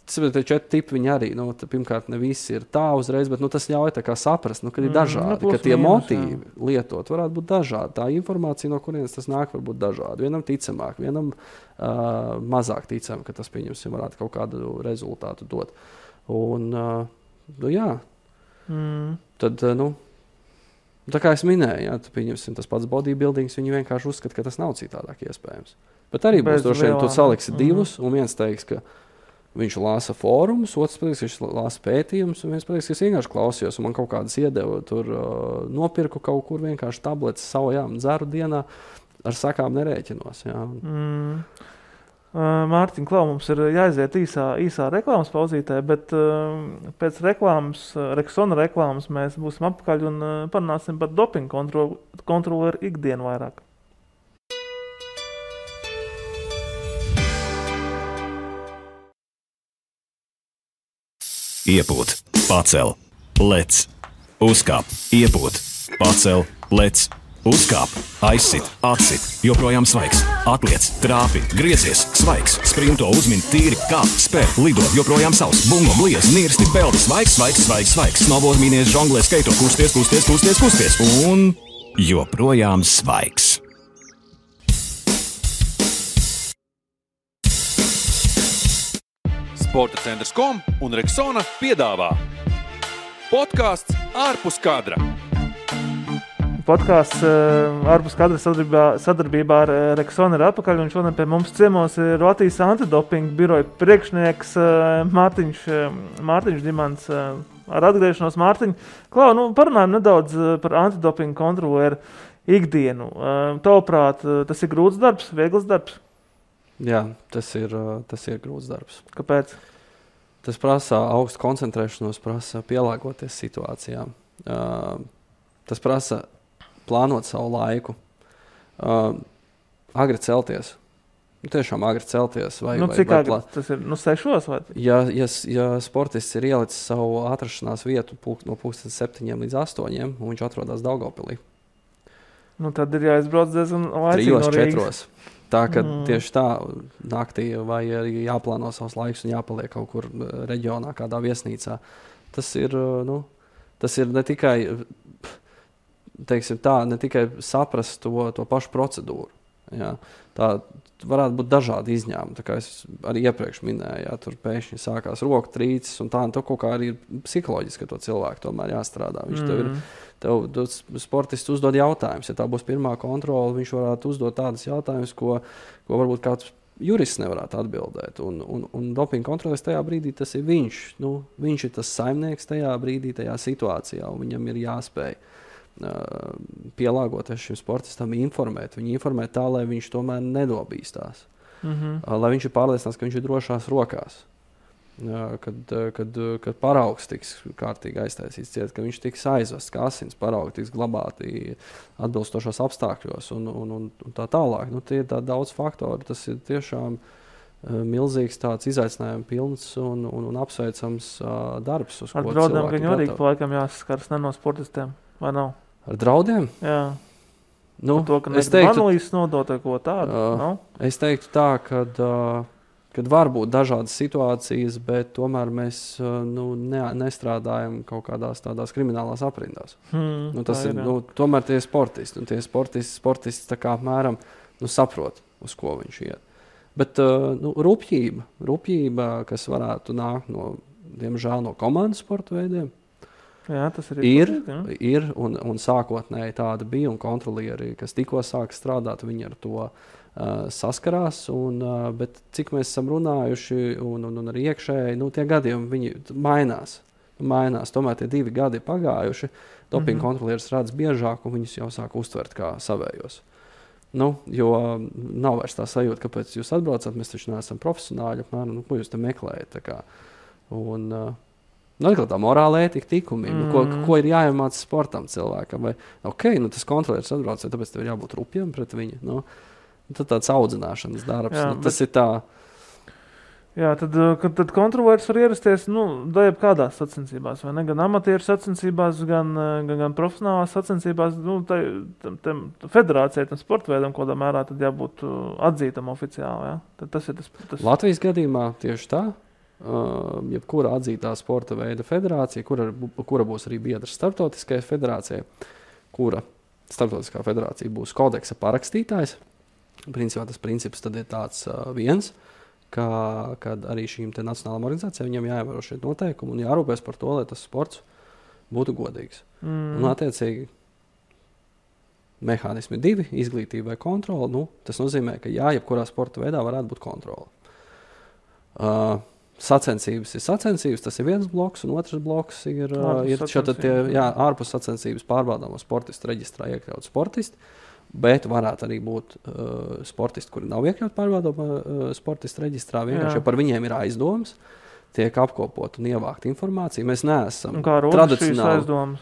Tas ir tie 4 tipi, viņi arī, pirmkārt, ne visi ir tā uzreiz, bet tas ļauj tā kā saprast, ka ir dažādi, ka tie motīvi lietot varētu būt dažādi. Tā informācija, no kurienes tas nāk, var būt dažādi. Vienam ticamāk, vienam mazāk ticam, ka tas, pieņemsim, varētu kaut kādu rezultātu dot. Un, jā. Tad, tā kā es minēju, jā, pieņemsim, tas pats bodybuildings, viņi vienkārši uzskata, ka tas nav citādāk iespējams. Bet arī būs droši vien, tu saliksi divus, un viens teiks, ka viņš lāsa fórumus, otrs pateiks, ka viņš lāsa pētījumus, un viens pateiks, ka es vienkārši klausījos, un man kaut kādas iedeva, tur nopirku kaut kur vienkārši tabletes savu, dzeru dienā, ar sakām nerēķinos. Jā. Mārtiņ, Klau, mums ir jāiziet īsā reklāmas pauzītē, bet pēc reklāmas, Rexona reklāmas mēs būsim apakaļ un parunāsim par dopingu kontroleru ikdienu vairāk. Iepūt, pacel, lec, uzkāp, iepūt, pacel, lec, uzkāp, aizsit, atsit, joprojām svaigs, atliec, trāpi, griezies, svaigs, sprinto, uzmin, tīri, kāp, spēr, lido, joprojām savs, bungo, bliez, nirsti, peldi, svaigs, snowboard, mīnies, žonglē, skaito, kusties, un joprojām svaigs. Sporta centrs.com un Rexona piedāvā podkāsts ārpus kadra. Podkāsts ārpus kadra sadarbībā ar Rexona ir atpakaļ, un šodien pie mums ciemos ir Latvijas antidopinga biroja priekšnieks Mārtiņš Dimants. Ar atgriešanos Mārtiņ. Klau, parunājam nedaudz par antidopinga kontroleru ikdienu. Tavuprāt, tas ir grūts darbs, viegls darbs? Jā, tas ir grūts darbs. Kāpēc? Tas prasa augstu koncentrēšanos, prasa pielāgoties situācijām. Tas prasa plānot savu laiku. Agri celties. Tiešām agri celties. Cik agri? Tas ir 6 vai? Ja sportists ir ielicis savu atrašanās vietu no 7 līdz 8, un viņš atrodas Daugavpilī. Tad ir jāizbrauc diezgan laicīgi no Rīgas. 3-4. Tā, ka tieši tā naktī vai arī jāplāno savs laiks un jāpaliek kaut kur reģionā, kādā viesnīcā. Tas ir ne tikai, teiksim tā, ne tikai saprast to pašu procedūru. Jā. Tā varētu būt dažādi izņēmumi. Tā kā es arī iepriekš minēju, jā, tur pēkšņi sākās roku trīcis un tā, un to kaut kā arī ir psiholoģiski, ka to cilvēku tomēr jāstrādā. Tev sportists uzdod jautājumus. Ja tā būs pirmā kontrole, viņš varētu uzdot tādas jautājumus, ko varbūt kāds jurists nevarētu atbildēt. Un dopinga kontroles tajā brīdī tas ir viņš. Viņš ir tas saimnieks tajā brīdī, tajā situācijā, un viņam ir jāspēj pielāgoties šim sportistam, informēt. Viņu informēt tā, lai viņš tomēr nedobīstās. Lai viņš ir pārliecināts, ka viņš ir drošās rokās. Kad paraugs tiks kārtīgi aiztaisīts ciet, ka viņš tiks aizvests, ka asins paraugi tiks glabāti atbilstošos apstākļos un tā tālāk. Tie ir tā daudz faktori. Tas ir tiešām milzīgs tāds izaicinājums pilns un apsveicams darbs, uz ko cilvēki ar draudiem viņu arī laikam jāsaskars no sportistiem, vai nav? Ar draudiem? Jā. To, ka analīzes nodot ko tādu? Es teiktu tā, kad var būt dažādas situācijas, bet tomēr mēs nestrādājam kaut kādās tādās kriminālās aprindās. Tomēr tie sportisti. Tie sportisti tā kā apmēram saprot, uz ko viņš iet. Bet rupjība, kas varētu nākt diemžēl no komandas sporta veidiem, jā, tas ir un sākotnēji tāda bija, un kontrolieri, kas tikko sāk strādāt, viņi ar to saskarās, bet cik mēs esam runājuši un arī iekšēji, tie gadījumi viņi mainās. Tomēr tie 2 gadi pagājuši, dopinga kontrolieris redz biežāk, un viņus jau sāk uztvert kā savējos. Jo nav vairs tā sajūta, kāpēc jūs atbraucat, mēs taču neesam profesionāļi, ko jūs te meklējat. Atkal tā morāla ētika tikumiem, ko ir jāiemāc sportam cilvēkam. Tas kontrolieris atbrauc, tāpēc tev ir jābūt rupjam pret viņu. Tad tāds audzināšanas darbs. Tas ir tā. Jā, tad kontrolieris var ierasties kādās sacensībās, vai ne? Gan amatieru sacensībās, gan profesionālās sacensībās. Federācijai, tam sporta veidam, kādā mērā tad jābūt atzītam oficiāli. Ja? Tad tas ir tas. Latvijas gadījumā tieši tā. jebkura atzītā sporta veida federācija, kura būs arī biedrs starptautiskajai federācijai, kura starptautiskā federācija būs kodeksa parakstītājs. Principā tas princips tad ir tāds viens, kad arī šīm te nacionālām organizācijām viņam jāievēro šie noteikumi un jārūpēs par to, lai tas sports būtu godīgs. Un attiecīgi mehānismi 2, izglītība vai kontrola, tas nozīmē, ka jebkurā sporta veidā varētu būt kontrola. Sacensības ir sacensības, tas ir viens bloks, un otrs bloks ir ārpus sacensības pārbaudāmo sportistu reģistrā iekļaut sportisti, bet varētu arī būt sportisti, kuri nav iekļaut pārbaudāmo sportistu reģistrā, vienkārši, jo par viņiem ir aizdomas, tiek apkopot un ievākt informāciju. Mēs neesam tradicionāli.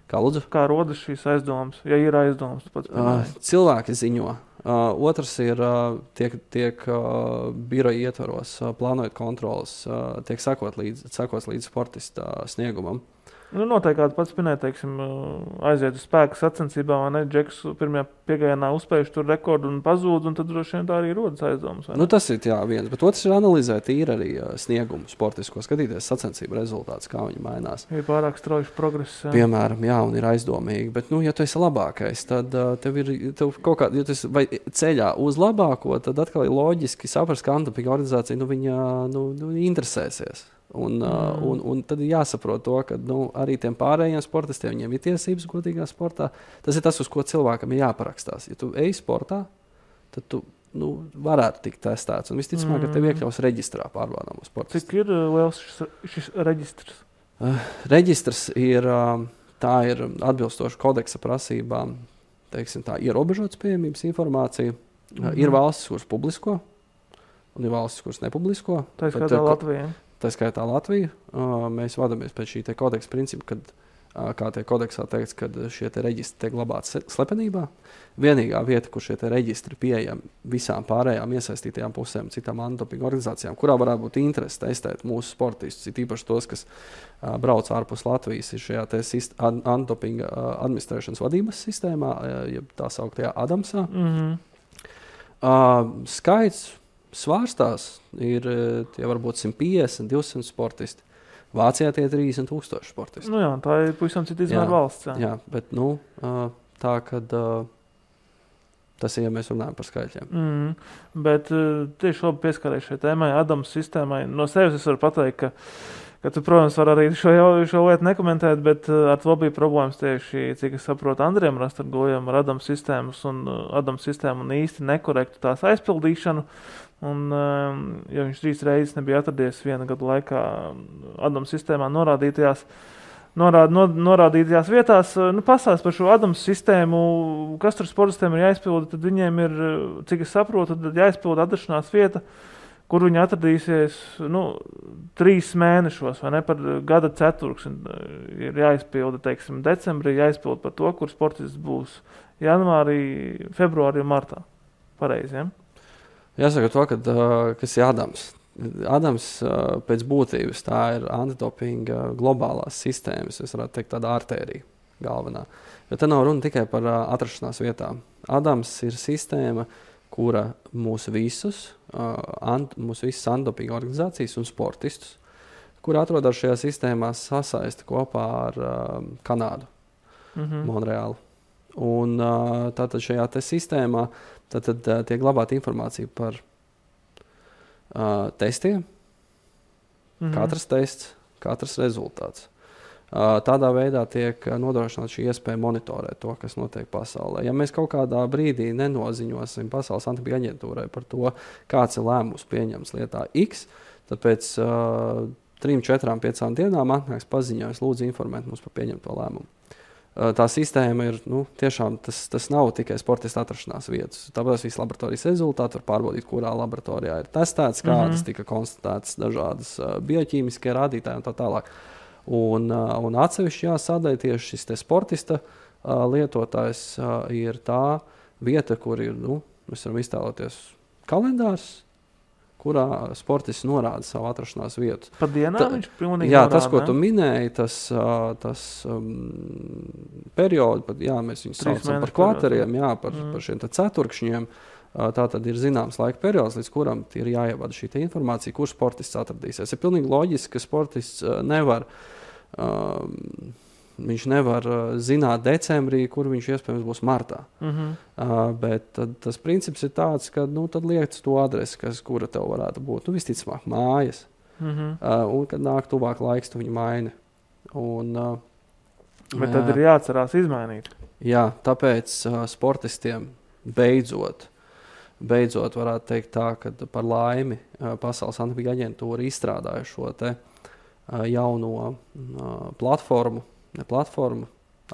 Kā rodas šīs aizdomas? Ja ir aizdomas, tu pats cilvēki ziņo. Otrs ir, tiek biroja ietvaros, plānojot kontrolas, tiek sekos līdz sportista sniegumam. Noteikti kāds pats minēja, teiksim, aiziet uz spēku sacensībā, vai ne? Džeks pirmajā piegājienā uzspējuši tur rekordu un pazūd, un tad droši vien tā arī rodas aizdomas. Tas ir viens, bet otrs ir analizēt īri arī sniegumu sportisko, skatīties sacensību rezultātus, kā viņi mainās. Ir pārāk strauji progress. Piemēram, un ir aizdomīgi, bet, ja tu esi labākais, tad tev kaut kā, ja tu esi vai ceļā uz labāko, tad atkal ir loģiski saprast, ka antidopinga organizācija, viņa interesēsies. Un tad ir jāsaprot to, ka arī tiem pārējiem sportistiem viņiem ir tiesības godīgā sportā. Tas ir tas, uz ko cilvēkam ir jāparakstās. Ja tu ej sportā, tad tu varētu tikt testēts. Un visticamāk, ka tev iekļaus reģistrā pārbaudāmo sportistu. Cik ir liels šis reģistrs? Reģistrs ir atbilstoši kodeksa prasībām, teiksim tā, ierobežotas pieejamības informācija. Ir valstis, kuras publisko, un ir valstis, kuras nepublisko. Tā skaitā Latvija. Tā skaitā Latvija. Mēs vadamies pēc šī te kodeksa principa, kā tie kodeksā teikts, kad šie te reģistri tiek glabāti slepenībā. Vienīgā vieta, kur šie te reģistri pieejami visām pārējām iesaistītajām pusēm, citām antidopinga organizācijām, kurā varētu būt interesi testēt mūsu sportistus, ir īpaši tos, kas brauc ārpus Latvijas, ir šajā te antidopinga administrēšanas vadības sistēmā, jeb tā sauktajā ADAMSā. Skaits svārstās ir tie varbūt 150, 200 sportisti. Vācijā tie 30,000 sportisti. Tā ir pavisam cita izmēra valsts. Jā, bet tā, kad tas ir, ja mēs runājam par skaitļiem. Bet tieši labi pieskarēju šai tēmai, ADAMS sistēmai. No sevis es varu pateikt, ka tu, protams, var arī šo lietu nekomentēt, bet ar to bija problēmas tieši, cik es saprotu, Andriem Rastargojam ar ADAMS sistēmu un īsti nekorektu tās aizpildīšanu. Un, ja viņš 3 reizes nebija atradies viena gada laikā ADAMS sistēmā norādītajās vietās, pastāst par šo ADAMS sistēmu, kas tur sportistiem ir jāizpilda, tad viņiem ir, cik es saprotu, tad jāizpilda atrašanās vieta, kur viņi atradīsies 3 mēnešos, vai ne, par gada ceturksni ir jāizpilda, teiksim, decembrī jāizpilda par to, kur sportists būs janvārī, februārī un martā. Pareizi, ja? Jāsaka to, kas ir ADAMS. ADAMS pēc būtības tā ir antidopinga globālās sistēmas, es varētu teikt tāda artērija galvenā. Jo te nav runa tikai par atrašanās vietām. ADAMS ir sistēma, kura mūsu visas antidopinga organizācijas un sportistus, kuri atrodas šajā sistēmā, sasaista kopā ar Kanādu, Monreālu. Un tātad šajā te sistēmā tiek glabāta informācija par testiem, katrs tests, katrs rezultāts. Tādā veidā tiek nodrošināta šī iespēja monitorēt to, kas notiek pasaulē. Ja mēs kaut kādā brīdī nenoziņosim Pasaules antidopinga aģentūrai par to, kāds ir lēmums pieņems lietā X, tad pēc 3, 4, 5 dienām atnāks paziņojums, lūdzu informēt mums par pieņemto lēmumu. Tā sistēma ir, tiešām tas nav tikai sportista atrašanās vietas. Tāpēc visi laboratorijas rezultāti var pārbaudīt, kurā laboratorijā ir testēts, kādas tika konstatētas dažādas bioķīmiskie rādītāji un tā tālāk. Un atsevišķi jāsadaļ tieši šis te sportista lietotājs ir tā vieta, kur ir, mēs varam iztēloties kalendārs, kurā sportists norāda savu atrašanās vietu. Pa dienā viņš pilnīgi norāda, tas, ko tu minēji, tas periodu, mēs viņus saucam par kvarteriem, par šiem ceturkšņiem, Tā tad ir zināms laika periods, līdz kuram ir jāievada šī informācija, kur sportists atradīsies. Ir pilnīgi loģiski, ka sportists viņš nevar zināt decembrī, kur viņš iespējams būs martā. Bet tas princips ir tāds, ka tad liec to adresi, kura tev varētu būt. Visticamāk, mājas. Un, kad nāk tuvāk laiks, tu viņu maini. Bet tad ir jāatcerās izmainīt. Jā, tāpēc sportistiem beidzot varētu teikt tā, ka par laimi Pasaules antidopinga aģentūra izstrādāja šo te jauno platformu,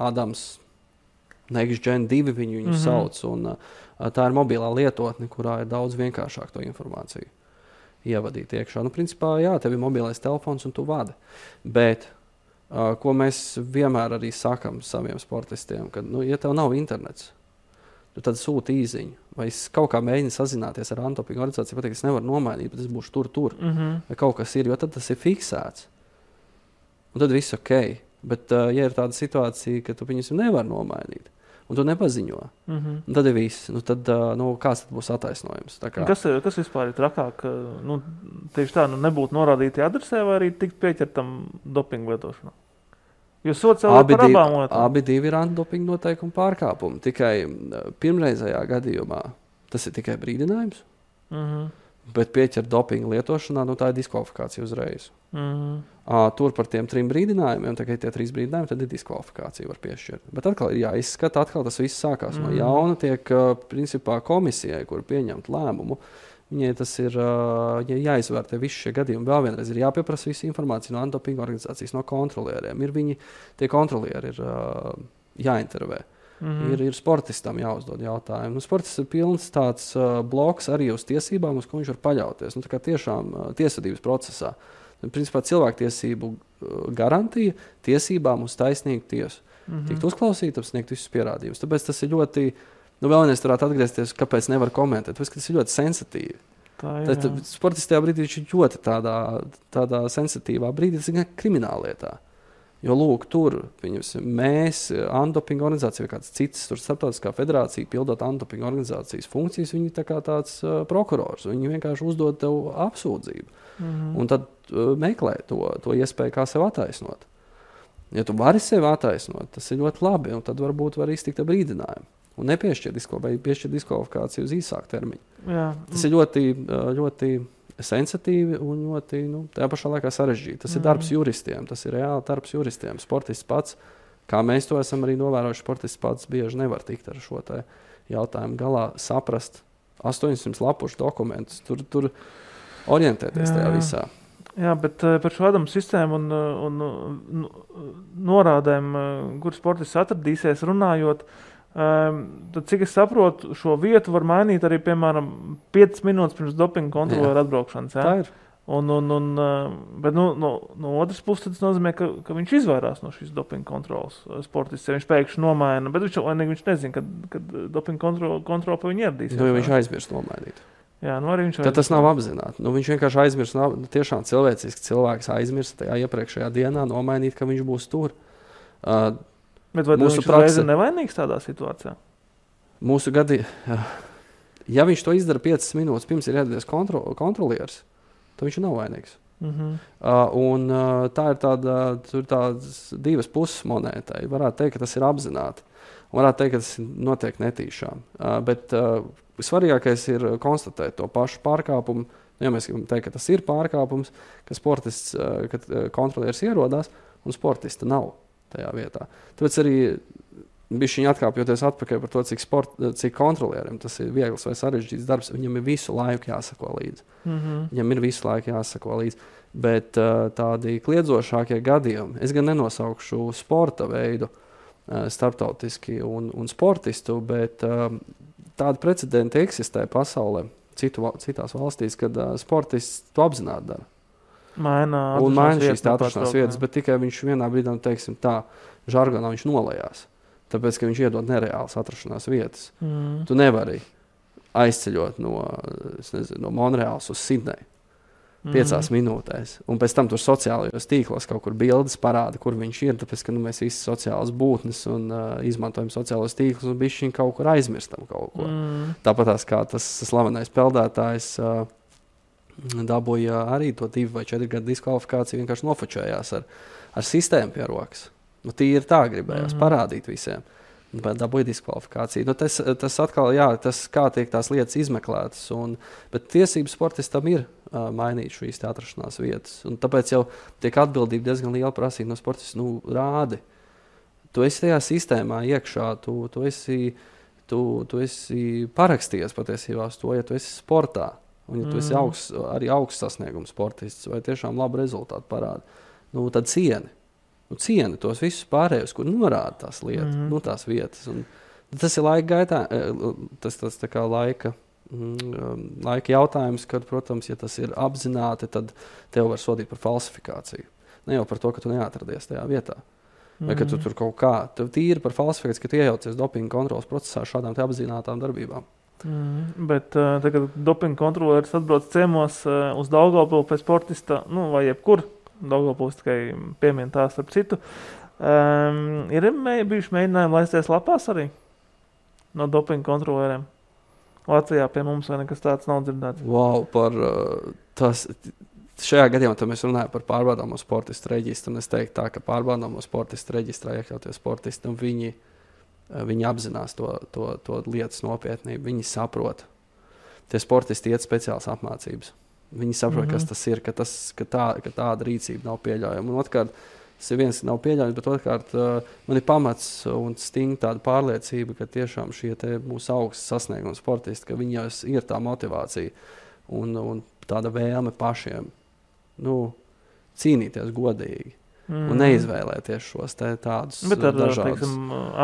Adams Next Gen 2 viņu sauc, un tā ir mobilā lietotne, kurā ir daudz vienkāršāk to informāciju ievadīt iekšā. Principā, jā, tev ir mobilais telefons un tu vadi, bet ko mēs vienmēr arī sakam saviem sportistiem, ka, ja tev nav internets, tu tad sūti īziņu. Vai es kaut kā mēģinu sazināties ar antidopinga organizāciju, pateikt, es nevaru nomainīt, bet es būšu tur. Vai kaut kas ir, jo tad tas ir fiksēts. Un tad viss ok. Bet, ja ir tāda situācija, ka tu viņus nevar nomainīt, un tu nepaziņo, tad ir viss. Tad, kāds tad būs attaisnojums? Kas vispār ir trakāk? Tieši tā, nebūtu norādīti adresē vai arī tikt pieķertam dopingu lietošanā? Jo sots jau ir par abām lietām. Abi divi ir antidopinga noteikumu pārkāpumi. Tikai pirmreizējā gadījumā tas ir tikai brīdinājums, bet pieķert dopinga lietošanā, tā ir diskvalifikācija uzreiz. Tur par tiem 3 brīdinājumiem, tikai tie 3 brīdinājumi, tad ir diskvalifikācija var piešķirt. Bet atkal ir jāizskata, tas viss sākās no jauna, tiek principā komisijai, kur pieņemt lēmumu. Viņai tas ir jāizvērtē visi šie gadījumi. Vēl vienreiz ir jāpieprasa visa informācija no antidopinga organizācijas, no kontrolieriem. Tie kontrolieri ir jāintervē. Ir sportistam jāuzdod jautājumu. Sportists ir pilns tāds bloks arī uz tiesībām, uz ko viņš var paļauties. Tā kā tiešām tiesvedības procesā. Principā cilvēktiesību garantija tiesībām uz taisnīgu tiesu. Tikt uzklausītam, sniegt visus pierādījumus. Tāpēc tas ir ļoti... Vēlreiz varētu atgriezties, kāpēc nevar komentēt. Tas ir ļoti sensitīvi. Sportists tajā brīdī ir ļoti tādā sensitīvā brīdī, tas ir krimināllietā. Jo, lūk, tur mēs, antidopinga organizācija vai kāds cits, tur starptautiskā federācija, pildot antidopinga organizācijas funkcijas, viņi tā kā tāds prokurors. Viņi vienkārši uzdod tev apsūdzību. Un tad meklē to iespēju, kā sev attaisnot. Ja tu vari sevi attaisnot, tas ir ļoti labi, un tad varbūt var iztikt ar brīdinājumu. Un nepiešķirt diskvalifikāciju uz īsāku termiņu. Jā. Tas ir ļoti, ļoti sensitīvi un ļoti, tajā pašā laikā sarežģīti. Tas ir darbs juristiem, tas ir reāli darbs juristiem. Sportists pats, kā mēs to esam arī novērojuši, sportists pats bieži nevar tikt ar šo te jautājumu galā, saprast 800 lapušu dokumentus, tur orientēties tajā visā. Jā, bet par šo Adamu sistēmu un norādēm, kur sportists atradīsies runājot, tad, cik es saprotu, šo vietu var mainīt arī, piemēram, 5 minūtes pirms dopinga kontrolieru atbraukšanas. Tā ir. Bet no otras puses tas nozīmē, ka viņš izvairās no šīs dopinga kontrolas sportists. Ja viņš pēkšņi nomaina, bet viņš nezina, kad dopinga kontrola pie viņa ieradīsies. Viņš aizmirst nomainīt. Jā, arī viņš tad tas nav apzināti. Viņš vienkārši aizmirst, tiešām cilvēciski cilvēks aizmirst tajā iepriekšējā dienā nomainīt, ka viņš būs tur. Bet vai viņš reiz ir nevainīgs tādā situācijā? Mūsu gadījumā, ja viņš to izdara 5 minūtes pirms ir ieradies kontrolieris, tad viņš nav vainīgs. Un tā ir tādas 2 puses monētai. Varētu teikt, ka tas ir apzināti. Un varētu teikt, ka tas notiek netīšām. Bet svarīgākais ir konstatēt to pašu pārkāpumu. Ja mēs gribam teikt, ka tas ir pārkāpums, ka sportists, kad kontrolieris ierodās un sportista nav tajā vietā. Tāpēc arī bišķiņi atkāpjoties atpakaļ par to, cik kontrolieriem tas ir viegls vai sarežģīts darbs, viņam ir visu laiku jāsako līdzi. Viņam ir visu laiku jāsako līdzi. Bet tādi kliedzošākie gadījumi, es gan nenosaukšu sporta veidu starptautiski un sportistu, bet tādi precedenti eksistē pasaulē, citās valstīs, kad sportists to apzināti dara. Maina šīs atrašanās vietas, bet tikai viņš vienā brīdī, teiksim tā, žargonā viņš nolējās. Tāpēc, ka viņš iedod nereālas atrašanās vietas. Tu nevari aizceļot no Monreāls uz Sidneju. 5 minūtēs. Un pēc tam tur sociālajos tīklos kaut kur bildes parāda, kur viņš ir, tāpēc, ka mēs visi sociālas būtnes un izmantojam sociālos tīklus un bišķiņ kaut kur aizmirstam kaut ko. Tāpatās kā tas slavenais peldētājs dabūja arī to 2 vai 4 gadu diskvalifikāciju, vienkārši nofočējās ar sistēmu pie rokas. Nu, tīri tā gribējās parādīt visiem. Dabūja diskvalifikāciju. Nu, tas atkal, tas kā tiek tās lietas izmeklētas. Bet tiesības sportistam ir mainīt šīs atrašanās vietas. Un tāpēc jau tiek atbildība diezgan liela prasība no sportista. Nu, rādi. Tu esi tajā sistēmā iekšā, tu esi parakstījies patiesībā uz to, ja tu esi sportā. Un ja tu esi augsts sasniegums sportists vai tiešām labu rezultātu parāda, nu, tad cieni. Cieni tos visus pārējos, kur norāda tās lietas, tās vietas. Un tas ir laika gaitā, tas tā kā laika jautājums, kad, protams, ja tas ir apzināti, tad tev var sodīt par falsifikāciju. Ne jau par to, ka tu neatradies tajā vietā. Vai ka tu tur kaut kā, tev tīri par falsifikāciju, ka tu iejaucies dopinga kontrolas procesā šādām te apzinātām darbībām. Bet tagad dopinga kontroleris atbrauc ciemos uz Daugavpili pēc sportista, vai jebkur. Daugavpils tikai piemien tā starp citu. Ir bijuši mēģinājumi laisties lapās arī no dopinga kontrolieriem? Latvijā pie mums vai nekas tāds nav dzirdēts? Wow, šajā gadījumā mēs runājam par pārbaudāmo sportistu reģistru. Un es teiktu tā, ka pārbaudāmo sportistu reģistrā iekļautie sportisti, viņi apzinās to lietas nopietnību, viņi saprot. Tie sportisti iet speciālas apmācības. Viņi saprot, kas tas ir, ka tāda rīcība nav pieļaujama. Un otrkārt, tas ir viens, ka nav pieļaujams, bet otrkārt, man ir pamats un stinga tāda pārliecība, ka tiešām šie mūsu augsts sasniegumi sportisti, ka viņos ir tā motivācija un tāda vēlme pašiem cīnīties godīgi un neizvēlēties šos tādus dažādus. Bet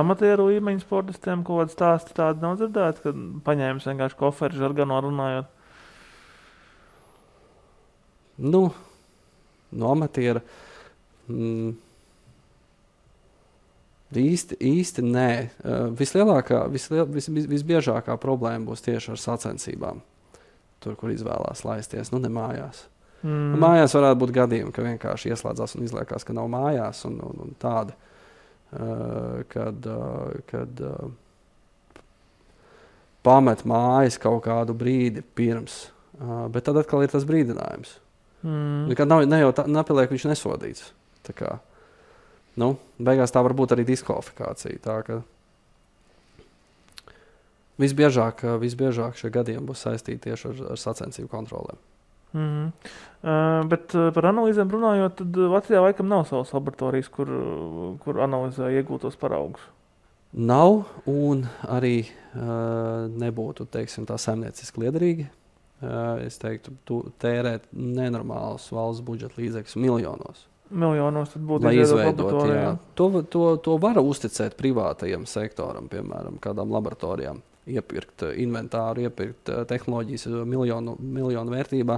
amatieru līmeņu sportistiem kaut kāds stāsti tādi nav dzirdēti, kad paņēmis vienkārši koferi žargano runājot? No amatiera īsti nē. Visbiežākā problēma būs tieši ar sacensībām. Tur, kur izvēlās laisties, ne mājās. Mājās varētu būt gadījumi, ka vienkārši ieslēdzās un izliekās, ka nav mājās un tādi, kad pamet mājas kaut kādu brīdi pirms. Bet tad atkal ir tas brīdinājums. Nekad nepieliek viņš nesodīts. Tā kā, beigās tā var būt arī diskvalifikācija. Tā ka visbiežāk šie gadījumi būs saistīti tieši ar sacensību kontrolēm. Bet par analīzēm runājot, tad Latvijā laikam nav savas laboratorijas, kur analizē iegūtos paraugus. Nav un arī nebūtu, teiksim, tā saimnieciski liederīgi. Es teiktu, tērēt nenormālus valsts budžeta līdzekļus miljonos. Miljonos tad būtu izveidot, jā. To var uzticēt privātajam sektoram, piemēram, kādām laboratorijām. Iepirkt inventāru, iepirkt tehnoloģijas miljonu vērtībā,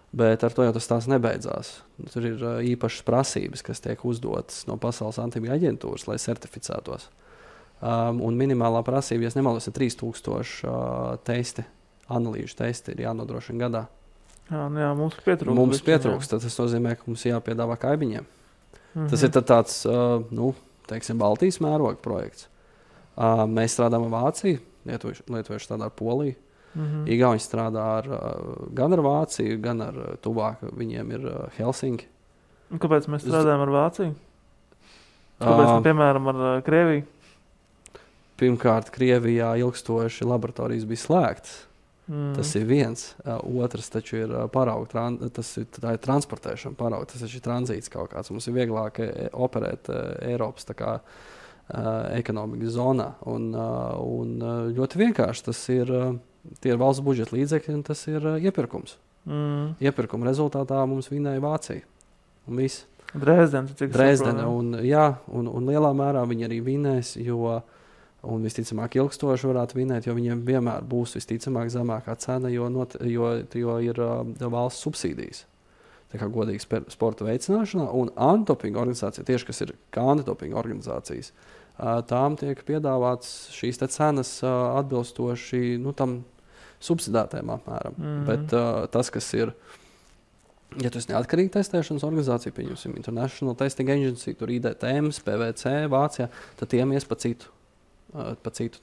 bet ar to jau tas nebeidzās. Tur ir īpašas prasības, kas tiek uzdotas no Pasaules antibiotika aģentūras, lai certificētos. Un minimālā prasība, ja nemaldos, ir 3000 testi. Analīžu testi ir jānodrošina gadā. Jā, mums pietrūkst. Mums pietrūkst, tad tas nozīmē, ka mums jāpiedāvā kaimiņiem. Tas ir tāds, teiksim, Baltijas mēroga projekts. Mēs strādājam ar Vāciju, lietuvieši strādā ar Poliju. Igauņi strādā gan ar Vāciju, gan ar tuvāk. Viņiem ir Helsinki. Un kāpēc mēs strādājam ar Vāciju? Kāpēc, piemēram, ar Krieviju? Pirmkārt, Krievijā ilgstoši laboratorijas bija slēgtas. Tas ir viens. Otrs taču ir parauga, tā ir transportēšana parauga, tas ir tranzīts kaut kāds. Mums ir vieglāk operēt Eiropas ekonomikas zonā. Un ļoti vienkārši tie ir valsts budžeta līdzekļi un tas ir iepirkums. Iepirkuma rezultātā mums vinēja Vācija. Un viss. Dresdene. Un lielā mērā viņi arī vinēs, un visticamāk ilgstoši varētu vinēt, jo viņiem vienmēr būs visticamāk zemākā cena, jo ir valsts subsīdijas. Tā kā godīgi sporta veicināšanā un antidopinga organizācija, tieši kas ir kā antidopinga organizācijas, tām tiek piedāvāts šīs cenas atbilstoši tam subsidētēm apmēram. Bet tas, kas ir Ja tu esi neatkarīga testēšanas organizācija, pieņemsim International Testing Agency, tur IDTM, PVC, Vācijā, tad tiem ies pa citu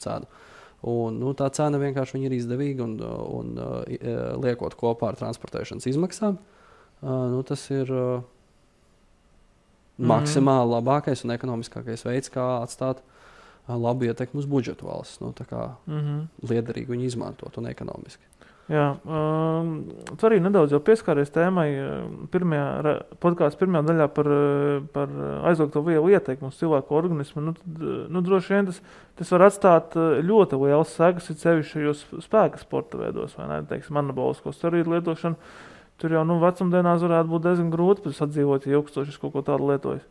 cenu. Un, tā cena vienkārši ir izdevīga un liekot kopā ar transportēšanas izmaksām, tas ir maksimāli labākais un ekonomiskākais veids, kā atstāt labu ietekmi uz budžetu valsts. Tā kā liederīgi viņu izmantot un ekonomiski. Jā, tu arī nedaudz jau pieskāries tēmai podkāstu pirmajā daļā par aizliegto vielu ietekmi uz cilvēku organismu. Droši vien tas var atstāt ļoti liels sekas, ir sevišķi šajos spēka sporta veidos, vai ne? Teiksim, anabolisko steroīdu lietošanu. Tur jau vecumdienās varētu būt diezgan grūti sadzīvot, ja ilgstoši kaut ko tādu lietojas.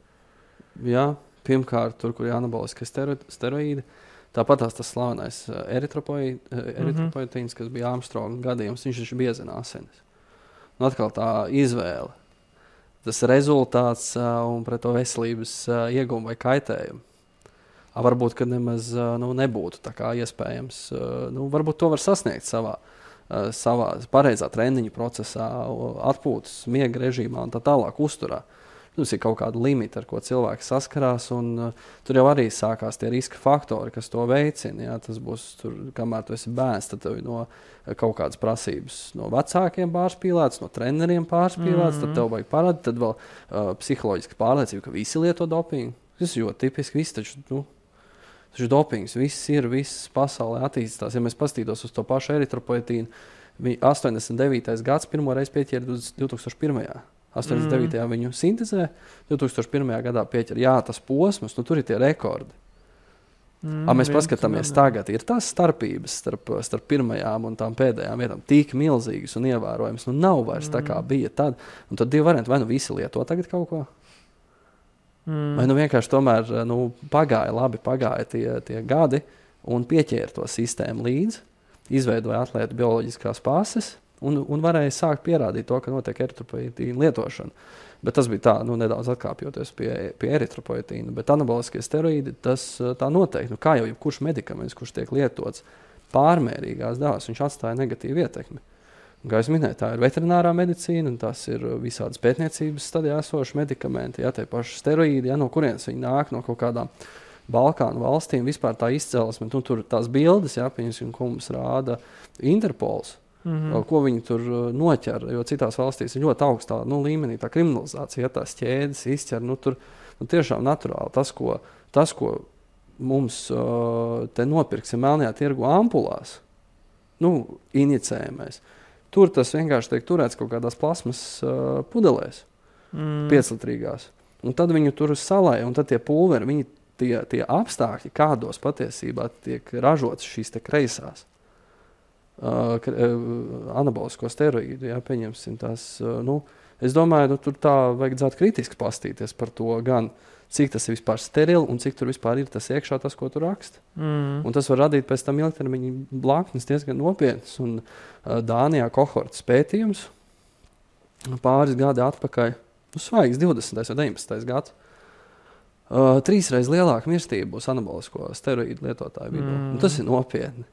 Jā, pirmkārt, tur, kur ir anaboliskie steroīdi, tāpat tas slavenais eritropoietīns, kas bija Armstronga gadījums, viņš taču biezina asinis. Atkal tā izvēle, tas rezultāts un pret to veselības iegumu vai kaitējumu. Varbūt, ka nemaz nebūtu tā kā iespējams. Varbūt to var sasniegt savā pareizā treniņu procesā, atpūtas, miega režīmā un tā tālāk uzturā. Tas ir kaut kāda limita, ar ko cilvēks saskarās, un tur jau arī sākās tie riska faktori, kas to veicina. Jā, tas būs, kamēr tu esi bērns, tad tev no kaut kādas prasības no vecākiem pārspīlētas, no treneriem pārspīlētas, tad tev vajag parādīt, tad vēl psiholoģiska pārliecība, ka visi lieto dopingu. Tas ir ļoti tipiski, visi taču dopings, viss pasaulē attīstās. Ja mēs pastītos uz to pašu eritropoietīnu, 89. gads pirmo reizi pieķēra 2001. 89. viņu sintezē, 2001. gadā pieķer. Jā, tas posms, tur ir tie rekordi. Mēs paskatāmies tagad, ir tās starpības starp pirmajām un tām pēdējām vietām tik milzīgas un ievērojams. Nav vairs tā kā bija tad. Un tad divi varianti, vai visi lieto tagad kaut ko, vai vienkārši tomēr pagāja tie gadi un pieķēra to sistēmu līdzi, izveidoja atlētu bioloģiskās pases, un varēja sākt pierādīt to, ka notiek eritropoietīna lietošana. Bet tas bija tā, nedaudz atkāpjoties pie eritropoietīna. Bet anaboliskie steroīdi, tas tā noteikti. Kā jau jebkurš medikaments, kurš tiek lietots pārmērīgās devās, viņš atstāja negatīvu ietekmi. Un, kā es minēju, tā ir veterinārā medicīna, un tas ir visādas pētniecības stadijā esoši medikamenti. Jā, tie paši steroīdi, no kurienes viņi nāk, no kaut kādām Balkānu valstīm, vispār tā izcelsme. Tur tās bildes, piemēram, ko mums rāda Interpols. Ko viņi tur noķer, jo citās valstīs ir ļoti augstā līmenī tā kriminalizācija, tās ķēdes izķer, tur tiešām naturāli. Tas, ko mums te nopirksim melnajā tirgu ampulās, injicējamais, tur tas vienkārši tiek turēts kaut kādās plasmas pudelēs, 5-litrīgās. Un tad viņu tur salai, un tad tie pulveri, tie apstākļi, kādos patiesībā tiek ražotas šīs te kreisās. Anabolisko steroīdu, pieņemsim tās, es domāju, tur tā vajadzētu kritiski pastīties par to gan, cik tas ir vispār sterili un cik tur vispār ir tas iekšā tas, ko tu raksti. Un tas var radīt pēc tam ilgtermiņa blaknes diezgan nopietnas, un Dānijā kohortas pētījums pāris gadi atpakaļ, svaigs 20. vai 19. gads, 3 reizes lielāka mirstība būs anabolisko steroīdu lietotāju vidū. Tas ir nopietni.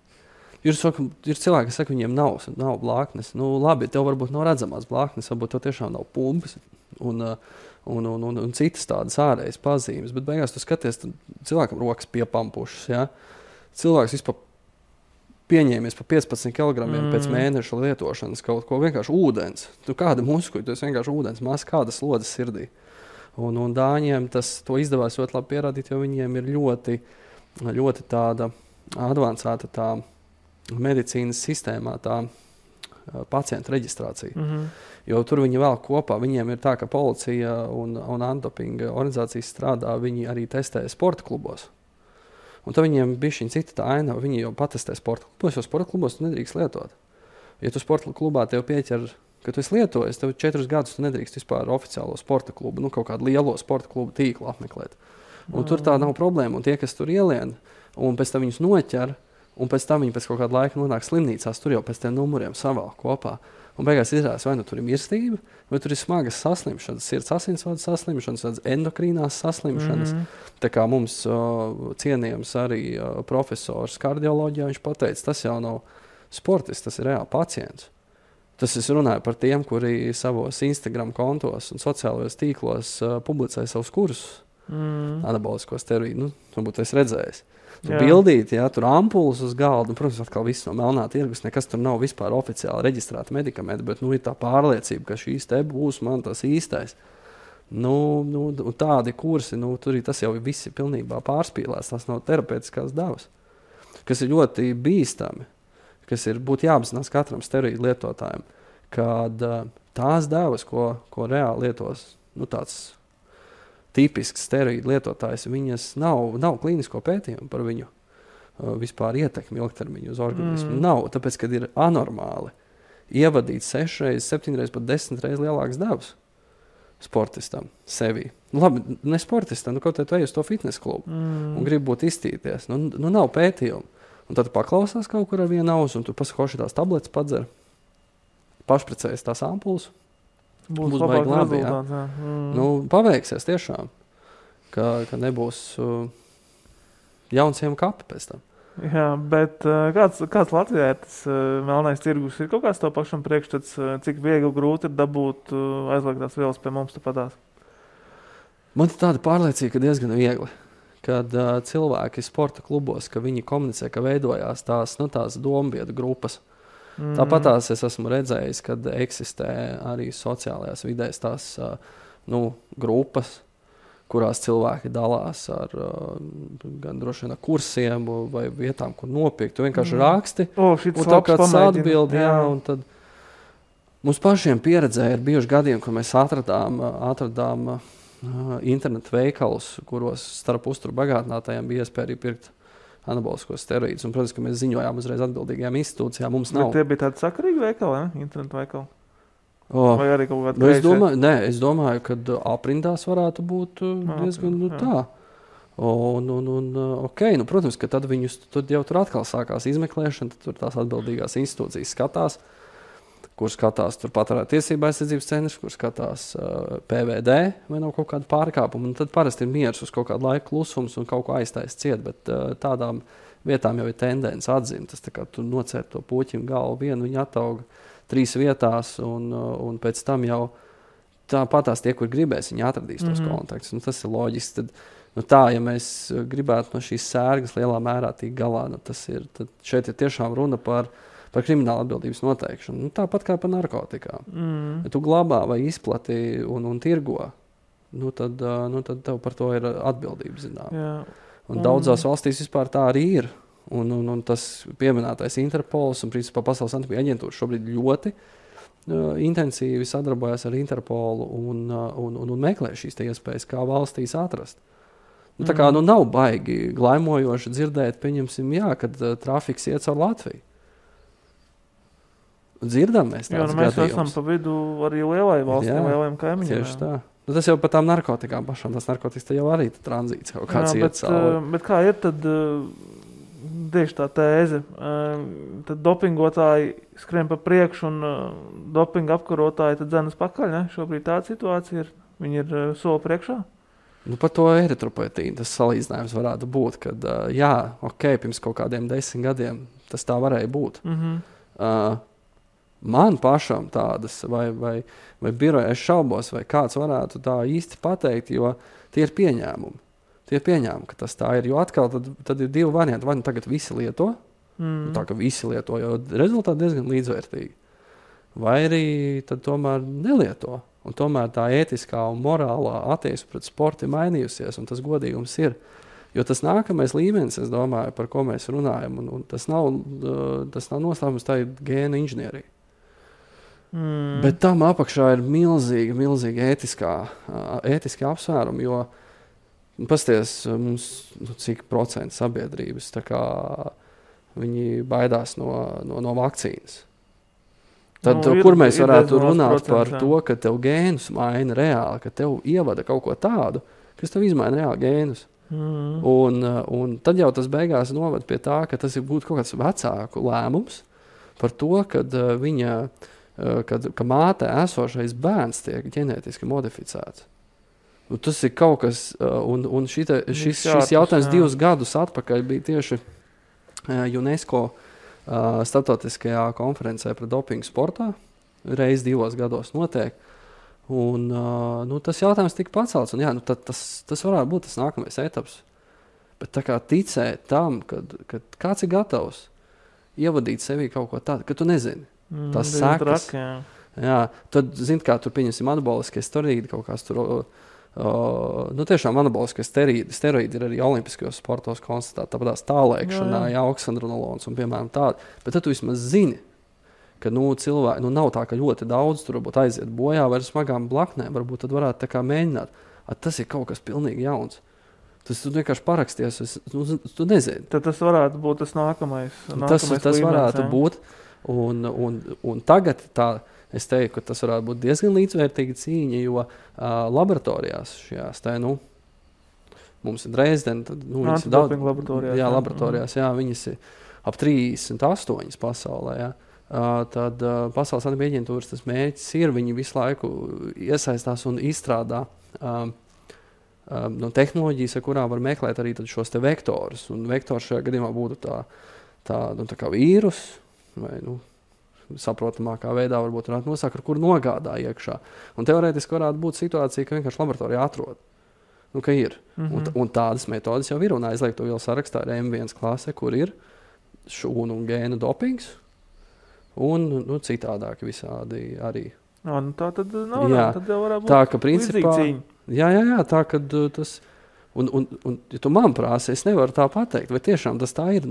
Ir cilvēki, kas saka, viņiem nav blāknes. Labi, tev varbūt nav redzamās blāknes, varbūt tev tiešām nav pumpas un citas tādas ārējas pazīmes. Bet beigās tu skaties, cilvēkam rokas piepampušas. Ja? Cilvēks vispār pieņēmies pa 15 kg pēc mēneša lietošanas kaut ko vienkārši ūdens. Kāda muskuļa, tu esi vienkārši ūdens, maz kādas slodzes sirdī. Un Dāņiem to izdevās ļoti labi pierādīt, jo viņiem ir ļoti, ļoti tāda advancēta tā medicīnas sistēmā tā pacientu reģistrācija. Jo tur viņi vēl kopā, viņiem ir tā, ka policija un antidopinga organizācijas strādā, viņi arī testē sporta klubos. Un tad viņiem bišķiņ cita tā aina, viņi jau patestē sporta klubos, jo sporta klubos tu nedrīkst lietot. Ja tu sporta klubā tev pieķer, ka tu esi lietojis, tev 4 gadus tu nedrīkst vispār oficiālo sporta klubu, kaut kādu lielo sporta klubu tīklu apmeklēt. Un tur tā nav problēma, un tie, kas tur ielien, un pēc tam viņus noķer, un pēc tam viņi pēc kaut kāda laika nonāk slimnīcās, tur jau pēc tiem numuriem savēl kopā. Un beigās izrādās, vai tur ir mirstība, vai tur ir smagas saslimšanas, sirds asinsvadu saslimšanas, endokrīnās saslimšanas. Tā kā mums cienījams arī profesors kardioloģijā, viņš pateica, tas jau nav sportists, tas ir reāli pacients. Tas es runāju par tiem, kuri savos Instagram kontos un sociālajos tīklos publicē savus kursus. Anabolisko steroīdu. Varbūt es redzējis. Tur bildīt, tur ampulas uz galda. Protams, atkal viss no melnā tirgus. Nekas tur nav vispār oficiāli reģistrēta medikamenti, bet ir tā pārliecība, ka šīs te būs man tas īstais. Tādi kursi, tur tas jau visi pilnībā pārspīlēs. Tas nav terapeitiskās devas, kas ir ļoti bīstami, kas būtu jāapzinās katram steroīdu lietotājiem, kad tās devas, ko reāli lietos, tāds tipisks steroīdu lietotājs, viņas nav klīnisko pētījumu par viņu vispār ietekmi ilgtermiņu uz organismu. Nav, tāpēc, kad ir anormāli ievadīt 6 reizes, 7 reizes, pat 10 reizes lielākas devas sportistam sevi. Labi, ne sportistam, kaut kā tu ej uz to fitness klubu un grib būt iztīties. Nav pētījumu. Un tad paklausās kaut kur ar vienu ausu un tu pasako šitās tabletes padzer, pašprecējas tās ampulas. Būs baigi labi, paveiksies tiešām, ka nebūs jaunsiem kapi pēc tam. Jā, bet kāds Latvijā ir tas melnais tirgus? Ir kaut kāds to pašam priekšstats, cik viegli grūti ir dabūt aizliegtās vielas pie mums tāpatās? Man ir tāda pārliecība, ka diezgan viegli. Kad cilvēki sporta klubos, ka viņi komunicē, ka veidojās tās dombiedru grupas. Tāpatās es esmu redzējis, kad eksistē arī sociālajās vidēs tās grupas, kurās cilvēki dalās ar gan droši vien kursiem vai vietām, kur nopirkt. Tu vienkārši raksti, un tā kāds atbildi, un tad mums pašiem pieredzē ir bijuši gadiem, kur mēs atradām internetu veikalus, kuros starp uzturu bagātinātājiem bija iespēja arī pirkt anaboliskos steroīdus. Un, protams, ka mēs ziņojām uzreiz atbildīgajām institūcijām. Mums nav. Bet tie bija tādi sakarīgi veikali, internetu veikali? Vai arī kaut kādi es domāju, ka aprindās varētu būt diezgan tā. Protams, ka tad tad jau tur atkal sākās izmeklēšana, tad tur tās atbildīgās institūcijas skatās, kur skatās tur patērētāju tiesību aizsardzības centrs, kur skatās PVD vai nav kaut kāda pārkāpuma. Un tad parasti ir miers uz kaut kādu laiku klusums un kaut ko aiztais ciet, bet tādām vietām jau ir tendence atzimt. Tas tā kā tu nocērt to puķim galvu vienu, viņi atauga 3 vietās un pēc tam jau tāpatās tie, kur gribēs, viņi atradīs tos kontaktus. Tas ir loģiski. Tad, ja mēs gribētu no šīs sērgas lielā mērā tikt galā, tad šeit ir tiešām runa par krimināla atbildības noteikšanu. Tāpat kā par narkotikām. Ja tu glabā vai izplati un tirgo, tad tev par to ir atbildība, zinām. Un daudzās valstīs vispār tā arī ir. Un tas pieminētais Interpols un principā Pasaules antidopinga aģentūra šobrīd ļoti intensīvi sadarbojas ar Interpolu un meklē šīs iespējas, kā valstīs atrast. Tā kā nav baigi glaimojoši dzirdēt, pieņemsim, kad trafiks iet caur Latviju. Dzirdam mēs tāds mēs gadījums. Esam pa vidu arī lielai valstī, lielajiem kaimiņiem. Tieši tā. Tas jau par tām narkotikām pašām. Tas narkotikas te jau arī tranzīts kaut kāds iet cauri. Bet kā ir tad tieši tā tēze? Tad dopingotāji skrien pa priekšu un dopinga apkarotāji tad dzenas pakaļ, ne? Šobrīd tāda situācija ir. Viņi ir soli priekšā? Par to eritropoetīnu tas salīdzinājums varētu būt, kad pirms kaut kādiem 10 gadiem tas tā varēja būt. Man pašam tādas, vai biroja es šaubos, vai kāds varētu tā īsti pateikt, jo tie ir pieņēmumi. Tie ir pieņēmumi, ka tas tā ir, jo atkal tad ir 2 varianti. Vai tagad visi lieto, tā ka visi lieto, jo rezultāti diezgan līdzvērtīgi. Vai arī tad tomēr nelieto. Un tomēr tā ētiskā un morālā attieksme pret sportu ir mainījusies, un tas godīgums ir. Jo tas nākamais līmenis, es domāju, par ko mēs runājam, un tas nav noslēpums, tā ir gēna inženierija. Bet tam apakšā ir milzīgi ētiski apsvērumi, jo pasties mums cik procentu sabiedrības, tā kā viņi baidās no vakcīnas. Tad, kur mēs varētu runāt par to, ka tev gēnus maina reāli, ka tev ievada kaut ko tādu, kas tev izmaina reāli gēnus. Un tad jau tas beigās noved pie tā, ka tas ir būt kaut kāds vecāku lēmums par to, ka mātē esošais bērns tiek ģenētiski modificēts. Tas ir kaut kas, un šis jautājums 2 gadus atpakaļ bija tieši UNESCO starptautiskajā konferencē par dopingu sportā, reizi 2 gados notiek. Un, tas jautājums tika pacelts. Un, jā, tas varētu būt tas nākamais etaps. Bet tā kā ticēt tam, kad kāds ir gatavs ievadīt sevī kaut ko tādu, ka tu nezini. Tas sekas. Jā, tad, kā tur pieņemsim anaboliskie steroīdi, kaut kāds tur, tiešām anaboliskie steroīdi ir arī olimpiskajos sportos konstatēti, tāpēc tālēkšanā, oksandronolons un piemēram tādi. Bet tad tu vismaz zini, ka cilvēki, nav tā, ka ļoti daudz tur varbūt aiziet bojā vai ar smagām blaknēm, varbūt tad varētu tā kā mēģināt. Tas ir kaut kas pilnīgi jauns. Tu vienkārši paraksties, tu nezini. Tad tas varētu būt tas nākamais tas varētu būt. Un tagad es teiktu, ka tas varētu būt diezgan līdzvērtīga cīņa, jo laboratorijās šajās mums ir Dresdena, tad viņas ir daudz laboratorijās, viņas ir ap 38 pasaulē, tad Pasaules antibiotiku aģentūras tas mērķis ir, viņi visu laiku iesaistās un izstrādā tehnoloģijas, ar kurām var meklēt arī šos te vektorus. Un vektors šajā gadījumā būtu tā kā vīrus, vai saprotamākā veidā varbūt varētu nosākt, ar kuru nogādā iekšā. Un teorētiski varētu būt situācija, ka vienkārši laboratorijā atrod. Ka ir. Un tādas metodas jau ir. Un aizliegto vielu sarakstā ir M1 klase, kur ir šūnu un gēnu dopings. Un citādāk visādi arī. Tā tad nav, tad jau varētu būt tā, ka principā, cīņa. Jā, tā, kad tas, un ja tu man prāsi, es nevaru tā pateikt, vai tiešām tas tā ir,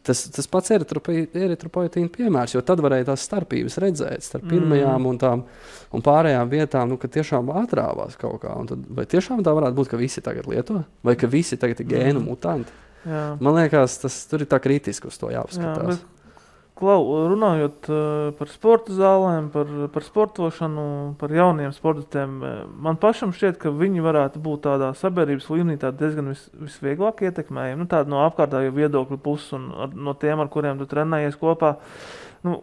tas pats eritropoietīna piemērs, jo tad varēja tās starpības redzēt starp pirmajām un pārējām vietām, ka tiešām atrāvās kaut kā, un tad, vai tiešām tā varētu būt, ka visi tagad lieto, vai ka visi tagad ir gēnu mutanti. Jā. Man liekas, tur ir tā kritiski uz to jāpaskatās. Runājot par sporta zālēm, par sportošanu, par jauniem sportistiem, man pašam šķiet, ka viņi varētu būt tādā sabiedrības līmenī diezgan visvieglāk ietekmējami. Tāda no apkārtējo viedokļu puses un no tiem, ar kuriem tu trenējies kopā.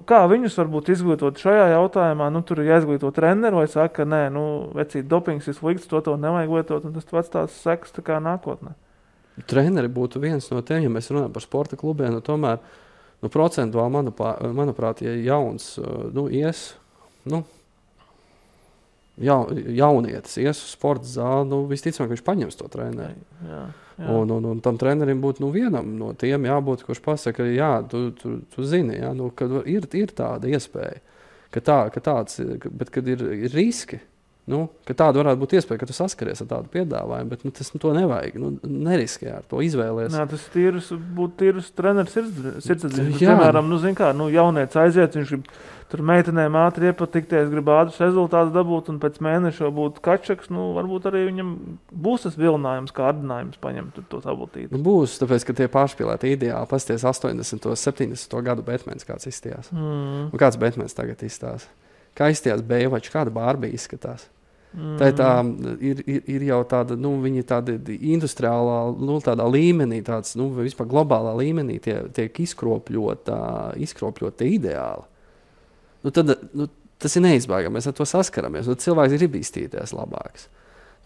Kā viņus varbūt izglītot šajā jautājumā? Tur ir jāizglīto treneri vai saka, ka nē, vecīt, dopings ir slikts, to nevajag lietot, un tas pats tās sekas tā kā nākotnē. Treneri būtu viens no tiem, ja mēs runājam par sporta klubiem, tomēr procentuāli, manuprāt, ja jauns jaunietis ies uz sporta zāli, visticamāk, viņš paņems to treneri. Jā. Un tam trenerim būtu vienam no tiem jābūt, kurš pasaka, tu zini, ka ir tāda iespēja, bet kad ir riski, ka tāda varētu būt iespēja, ka tu saskaries ar tādu piedāvājumu, bet tas to nevajag, neriskē ar to izvēlies. Jā, tas būtu tīrus treneris sirdsapziņas. Piemēram, jaunietis aiziet, viņš grib tur meitenēm ātri iepatikties, grib ātrs rezultāts dabūt, un pēc mēneša būt kačaks, varbūt arī viņam būs tas vilinājums, kārdinājums paņemt to tabletīti. Būs, tāpēc, ka tie pārspīlēti ideāli, pasties 80. 70. gadu Batmans kāds izstījās. Un kāds Batmans tagad izstās? Kā izstījās Beivačs, kāda Barbija izskatās? Tā ir jau tāda, viņi tāda industriālā, tādā līmenī, tāds, vispār globālā līmenī tiek izkropļota ideāli. Tas ir neizbēgami, mēs ar to saskaramies. Cilvēks grib iztīties labāks.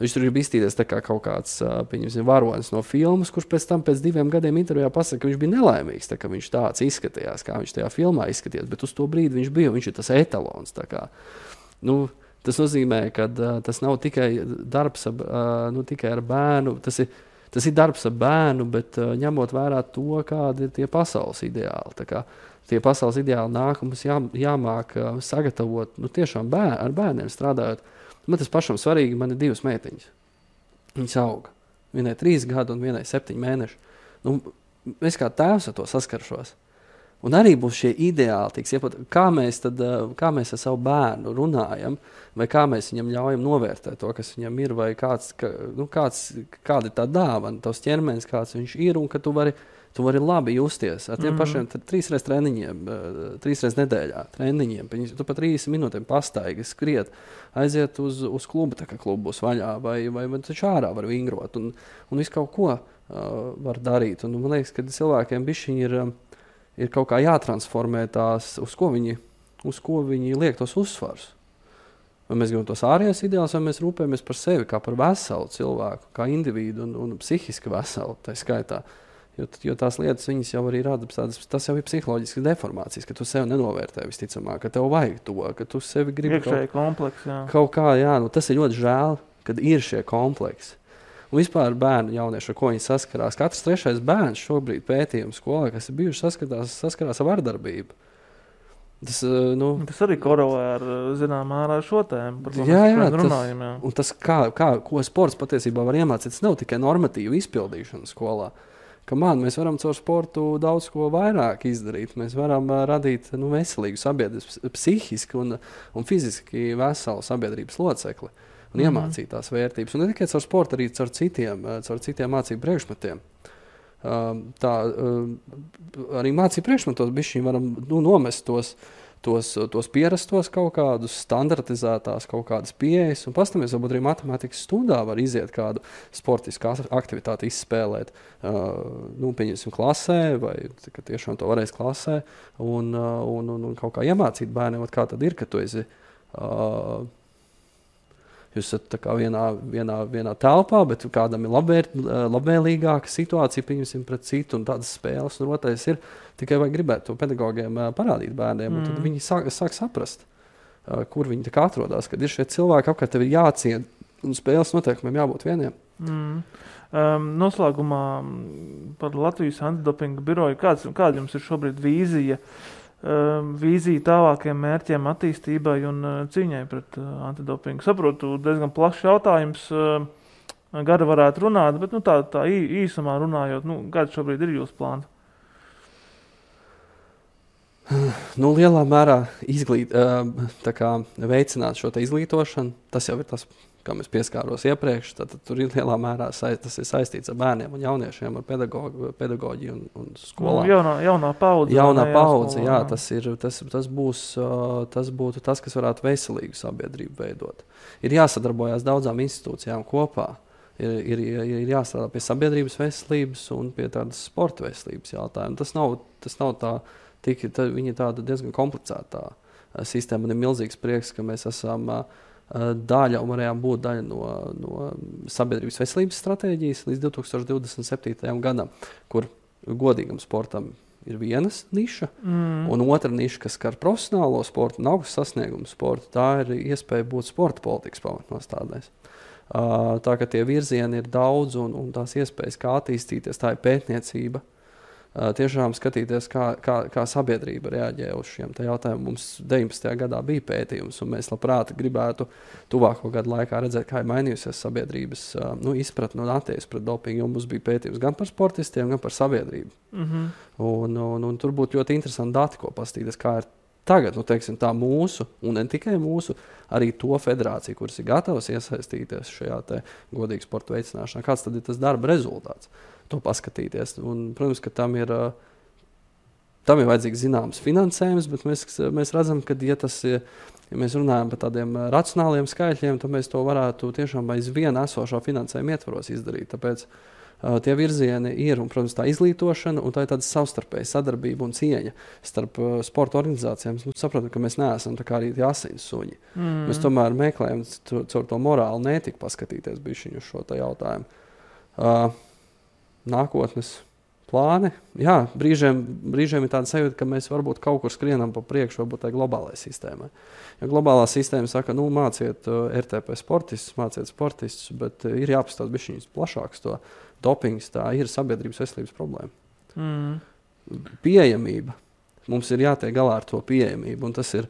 Viņš tur grib iztīties tā kā kaut kāds, pieņemsim, varonis no filmas, kurš pēc 2 gadiem intervijā pasaka, ka viņš bija nelaimīgs, tā kā viņš tāds izskatījās, kā viņš tajā filmā izskatījās, bet uz to brīdi viņš ir tas etalons. Tā kā, tas nozīmē, ka tas nav tikai darbs tikai ar bērnu, tas ir darbs ar bērnu, bet ņemot vērā to, kādi ir tie pasaules ideāli. Tā kā tie pasaules ideāli nāk, mums jāmāk sagatavot, tiešām ar bērniem strādājot. Man tas pašam svarīgi, man ir 2 meitiņas. Viņas auga. Vienai 3 gadu un vienai 7 mēneši. Es kā tēvs ar to saskaršos. Un arī būs šie ideāli, kā mēs ar savu bērnu runājam, vai kā mēs viņam ļaujam novērtēt to, kas viņam ir, vai kāda ir tā dāvana, tavs ķermenis, kāds viņš ir, un ka tu vari labi justies ar tiem pašiem 3 reizes treniņiem, 3 reizes nedēļā treniņiem. Tu pa 30 minūtēm pastaigi, skriet, aiziet uz klubu, tā kā klubu būs vaļā, vai taču ārā var vingrot, un visu kaut ko var darīt. Un man liekas, ka cilvēkiem bišķiņi ir kaut kā jātransformē tās, uz ko viņi liek tos uzsvars. Vai mēs gribam tos ārējās ideālus, vai mēs rūpējamies par sevi kā par veselu cilvēku, kā individu un psihiski veselu, tā skaitā. Jo tās lietas viņas jau arī rada, tas jau ir psiholoģiskas deformācijas, ka tu sev nenovērtē visticamāk, ka tev vajag to, ka tu sevi gribi kaut kā, tas ir ļoti žēl, kad ir šie kompleksi. Un vispār bērnu jaunieši, ar ko viņi saskarās. Katrs 3. bērns šobrīd pētījums skolā, kas ir bijuši saskarās ar vardarbību. Tas arī korelē ar zinām ārā šo tēmu, par ko mēs runājam. Jā. Un tas, ko sports patiesībā var iemācīt, tas nav tikai normatīvu izpildīšana skolā. Mēs varam caur sportu daudz ko vairāk izdarīt. Mēs varam radīt veselīgu sabiedrības, psihiski un fiziski veselu sabiedrības locekli un iemācīt tās vērtības. Un ne tikai caur sportu, arī caur citiem mācību priekšmetiem. Arī mācību priekšmetos bišķiņ varam nomest tos pierastos kaut kādus standartizētās kaut kādas pieejas un pastamies, varbūt arī matemātikas stundā var iziet kādu sportisku aktivitāti izspēlēt, pieņemsim klasē vai tiešām to varēs klasē un kaut kā iemācīt bērniem, kā tad ir, ka tu esi jūs esat tā kā vienā telpā, bet kādam ir labvēlīgāka situācija, pieņemsim pret citu un tādas spēles. Un otrais ir tikai vajag gribēt to pedagogiem parādīt bērniem, un tad viņi sāk saprast, kur viņi tā kā atrodas, kad ir šie cilvēki apkārt, tev ir jāciena un spēles noteikumiem jābūt vieniem. Noslēgumā par Latvijas antidopinga biroju. Kāda jums ir šobrīd vīzija tālākiem mērķiem attīstībai un cīņai pret antidopingu? Saprotu, diezgan plašs jautājums, gari varētu runāt, bet tā īsumā runājot, kāds šobrīd ir jūsu plāns? Lielā mērā veicināt šo izglītošanu, tas jau ir tas, kā mēs pieskāros iepriekš, tad tur ir lielā mērā tas ir saistīts ar bērniem un jauniešiem, ar pedagoģiju un skolām. Jaunā paudze. Jaunā paudze, jā, tas būtu tas, kas varētu veselīgu sabiedrību veidot. Ir jāsadarbojās daudzām institūcijām kopā. Ir jāstrādā pie sabiedrības veselības un pie tādas sporta veselības jautājumu. Tas nav tā, viņa tāda diezgan komplicētā sistēma. Man ir milzīgs prieks, ka mēs esam daļa un varējām būt daļa no sabiedrības veselības stratēģijas līdz 2027. gadam, kur godīgam sportam ir vienas niša, un otra niša, kas skar profesionālo sportu un augstu sasniegumu sportu, tā ir iespēja būt sporta politikas pamatnostādēs. Tā ka tie virzieni ir daudz un tās iespējas, kā attīstīties, tā ir pētniecība. Tiešām skatīties, kā sabiedrība reaģē uz šiem jautājumiem. Mums 19. gadā bija pētījums, un mēs labprāt gribētu tuvāko gadu laikā redzēt, kā ir mainījusies sabiedrības izpratne un attieksme pret dopingu, jo mums bija pētījums gan par sportistiem, gan par sabiedrību. Un tur būtu ļoti interesanti dati, ko pastīties, kā ir tagad, tā mūsu, un ne tikai mūsu, arī to federāciju, kuras ir gatavas iesaistīties šajā godīgu sporta veicināšanā. Kāds tad ir tas darba rezultāts? To paskatīties. Un, protams, ka tam ir vajadzīgs zināms finansējums, bet mēs redzam, ka ja mēs runājam par tādiem racionāliem skaitļiem, tad mēs to varētu tiešām aiz viena esošā finansējuma ietvaros izdarīt. Tāpēc tie virzieni ir, un, protams, tā izglītošana, un tā ir tāda savstarpēja sadarbība un cieņa starp sporta organizācijām. Mēs saprotam, ka mēs neesam tā kā arī tie asins suņi. Mēs tomēr meklējam caur to morālu netiku paskatīties bišķiņu uz šo jautājumu. Nākotnes plāni. Jā, brīžiem ir tāda sajūta, ka mēs varbūt kaut kur skrienam pa priekšu, varbūt tai globālai sistēmai. Ja globālā sistēma saka, māciet RTP sportistus, bet ir jāpastāst bišķiņas plašāks to dopings, tā ir sabiedrības veselības problēma. Pieejamība. Mums ir jātiek galā ar to pieejamību, un tas ir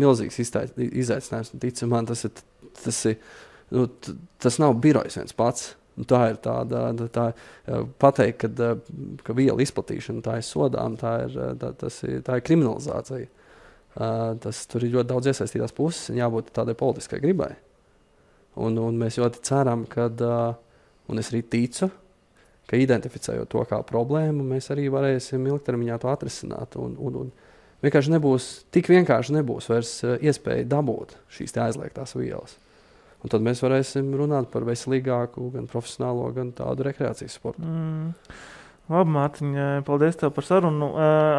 milzīgs izaicinājums. Tici man, tas nav birojs viens pats. Tā ir tā pateikt, ka vielu izplatīšana tā ir sodām, tā ir kriminalizācija. Tur ir ļoti daudz iesaistītās puses un jābūt tādai politiskai gribai. Un mēs ļoti ceram, un es arī ticu, ka identificējot to kā problēmu, mēs arī varēsim ilgtermiņā to atrisināt. Un vienkārši tik vienkārši nebūs vairs iespēja dabūt šīs aizliegtās vielas. Un tad mēs varēsim runāt par veselīgāku, gan profesionālo, gan tādu rekreācijas sportu. Labi, Mārtiņ, paldies tev par sarunu.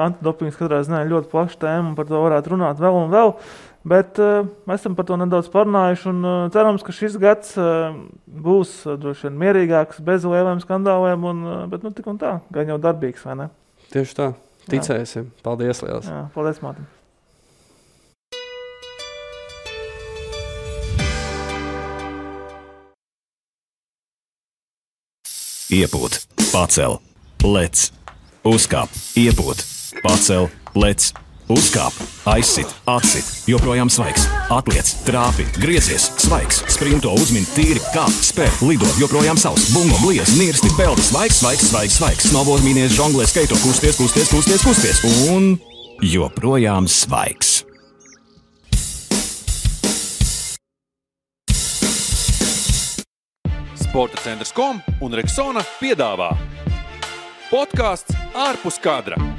Antidopings katrā ziņā ļoti plaša tēma, un par to varētu runāt vēl un vēl. Bet mēs esam par to nedaudz parunājuši un cerams, ka šis gads būs droši vien mierīgāks, bez lieliem skandāliem, bet tik un tā, gan jau darbīgs, vai ne? Tieši tā, ticēsim. Paldies liels. Jā, paldies, Mātim. Iepūt, pacel, lec, uzkāp, iepūt, pacel, lec, uzkāp, aizsit, atsit, joprojām svaigs, atliec, trāpi, griezies, svaigs, sprinto, uzmin, tīri, kāp, spēr, lido, joprojām savs, bungo, bliez, nirsti, peldi, svaigs, svaigs, svaigs, svaigs, snowboard, mīnies, žonglē, skaito, kusties, kusties, kusties, kusties, un joprojām svaigs. Sporta centrs.com un Rexona piedāvā podcasts Ārpus kadra.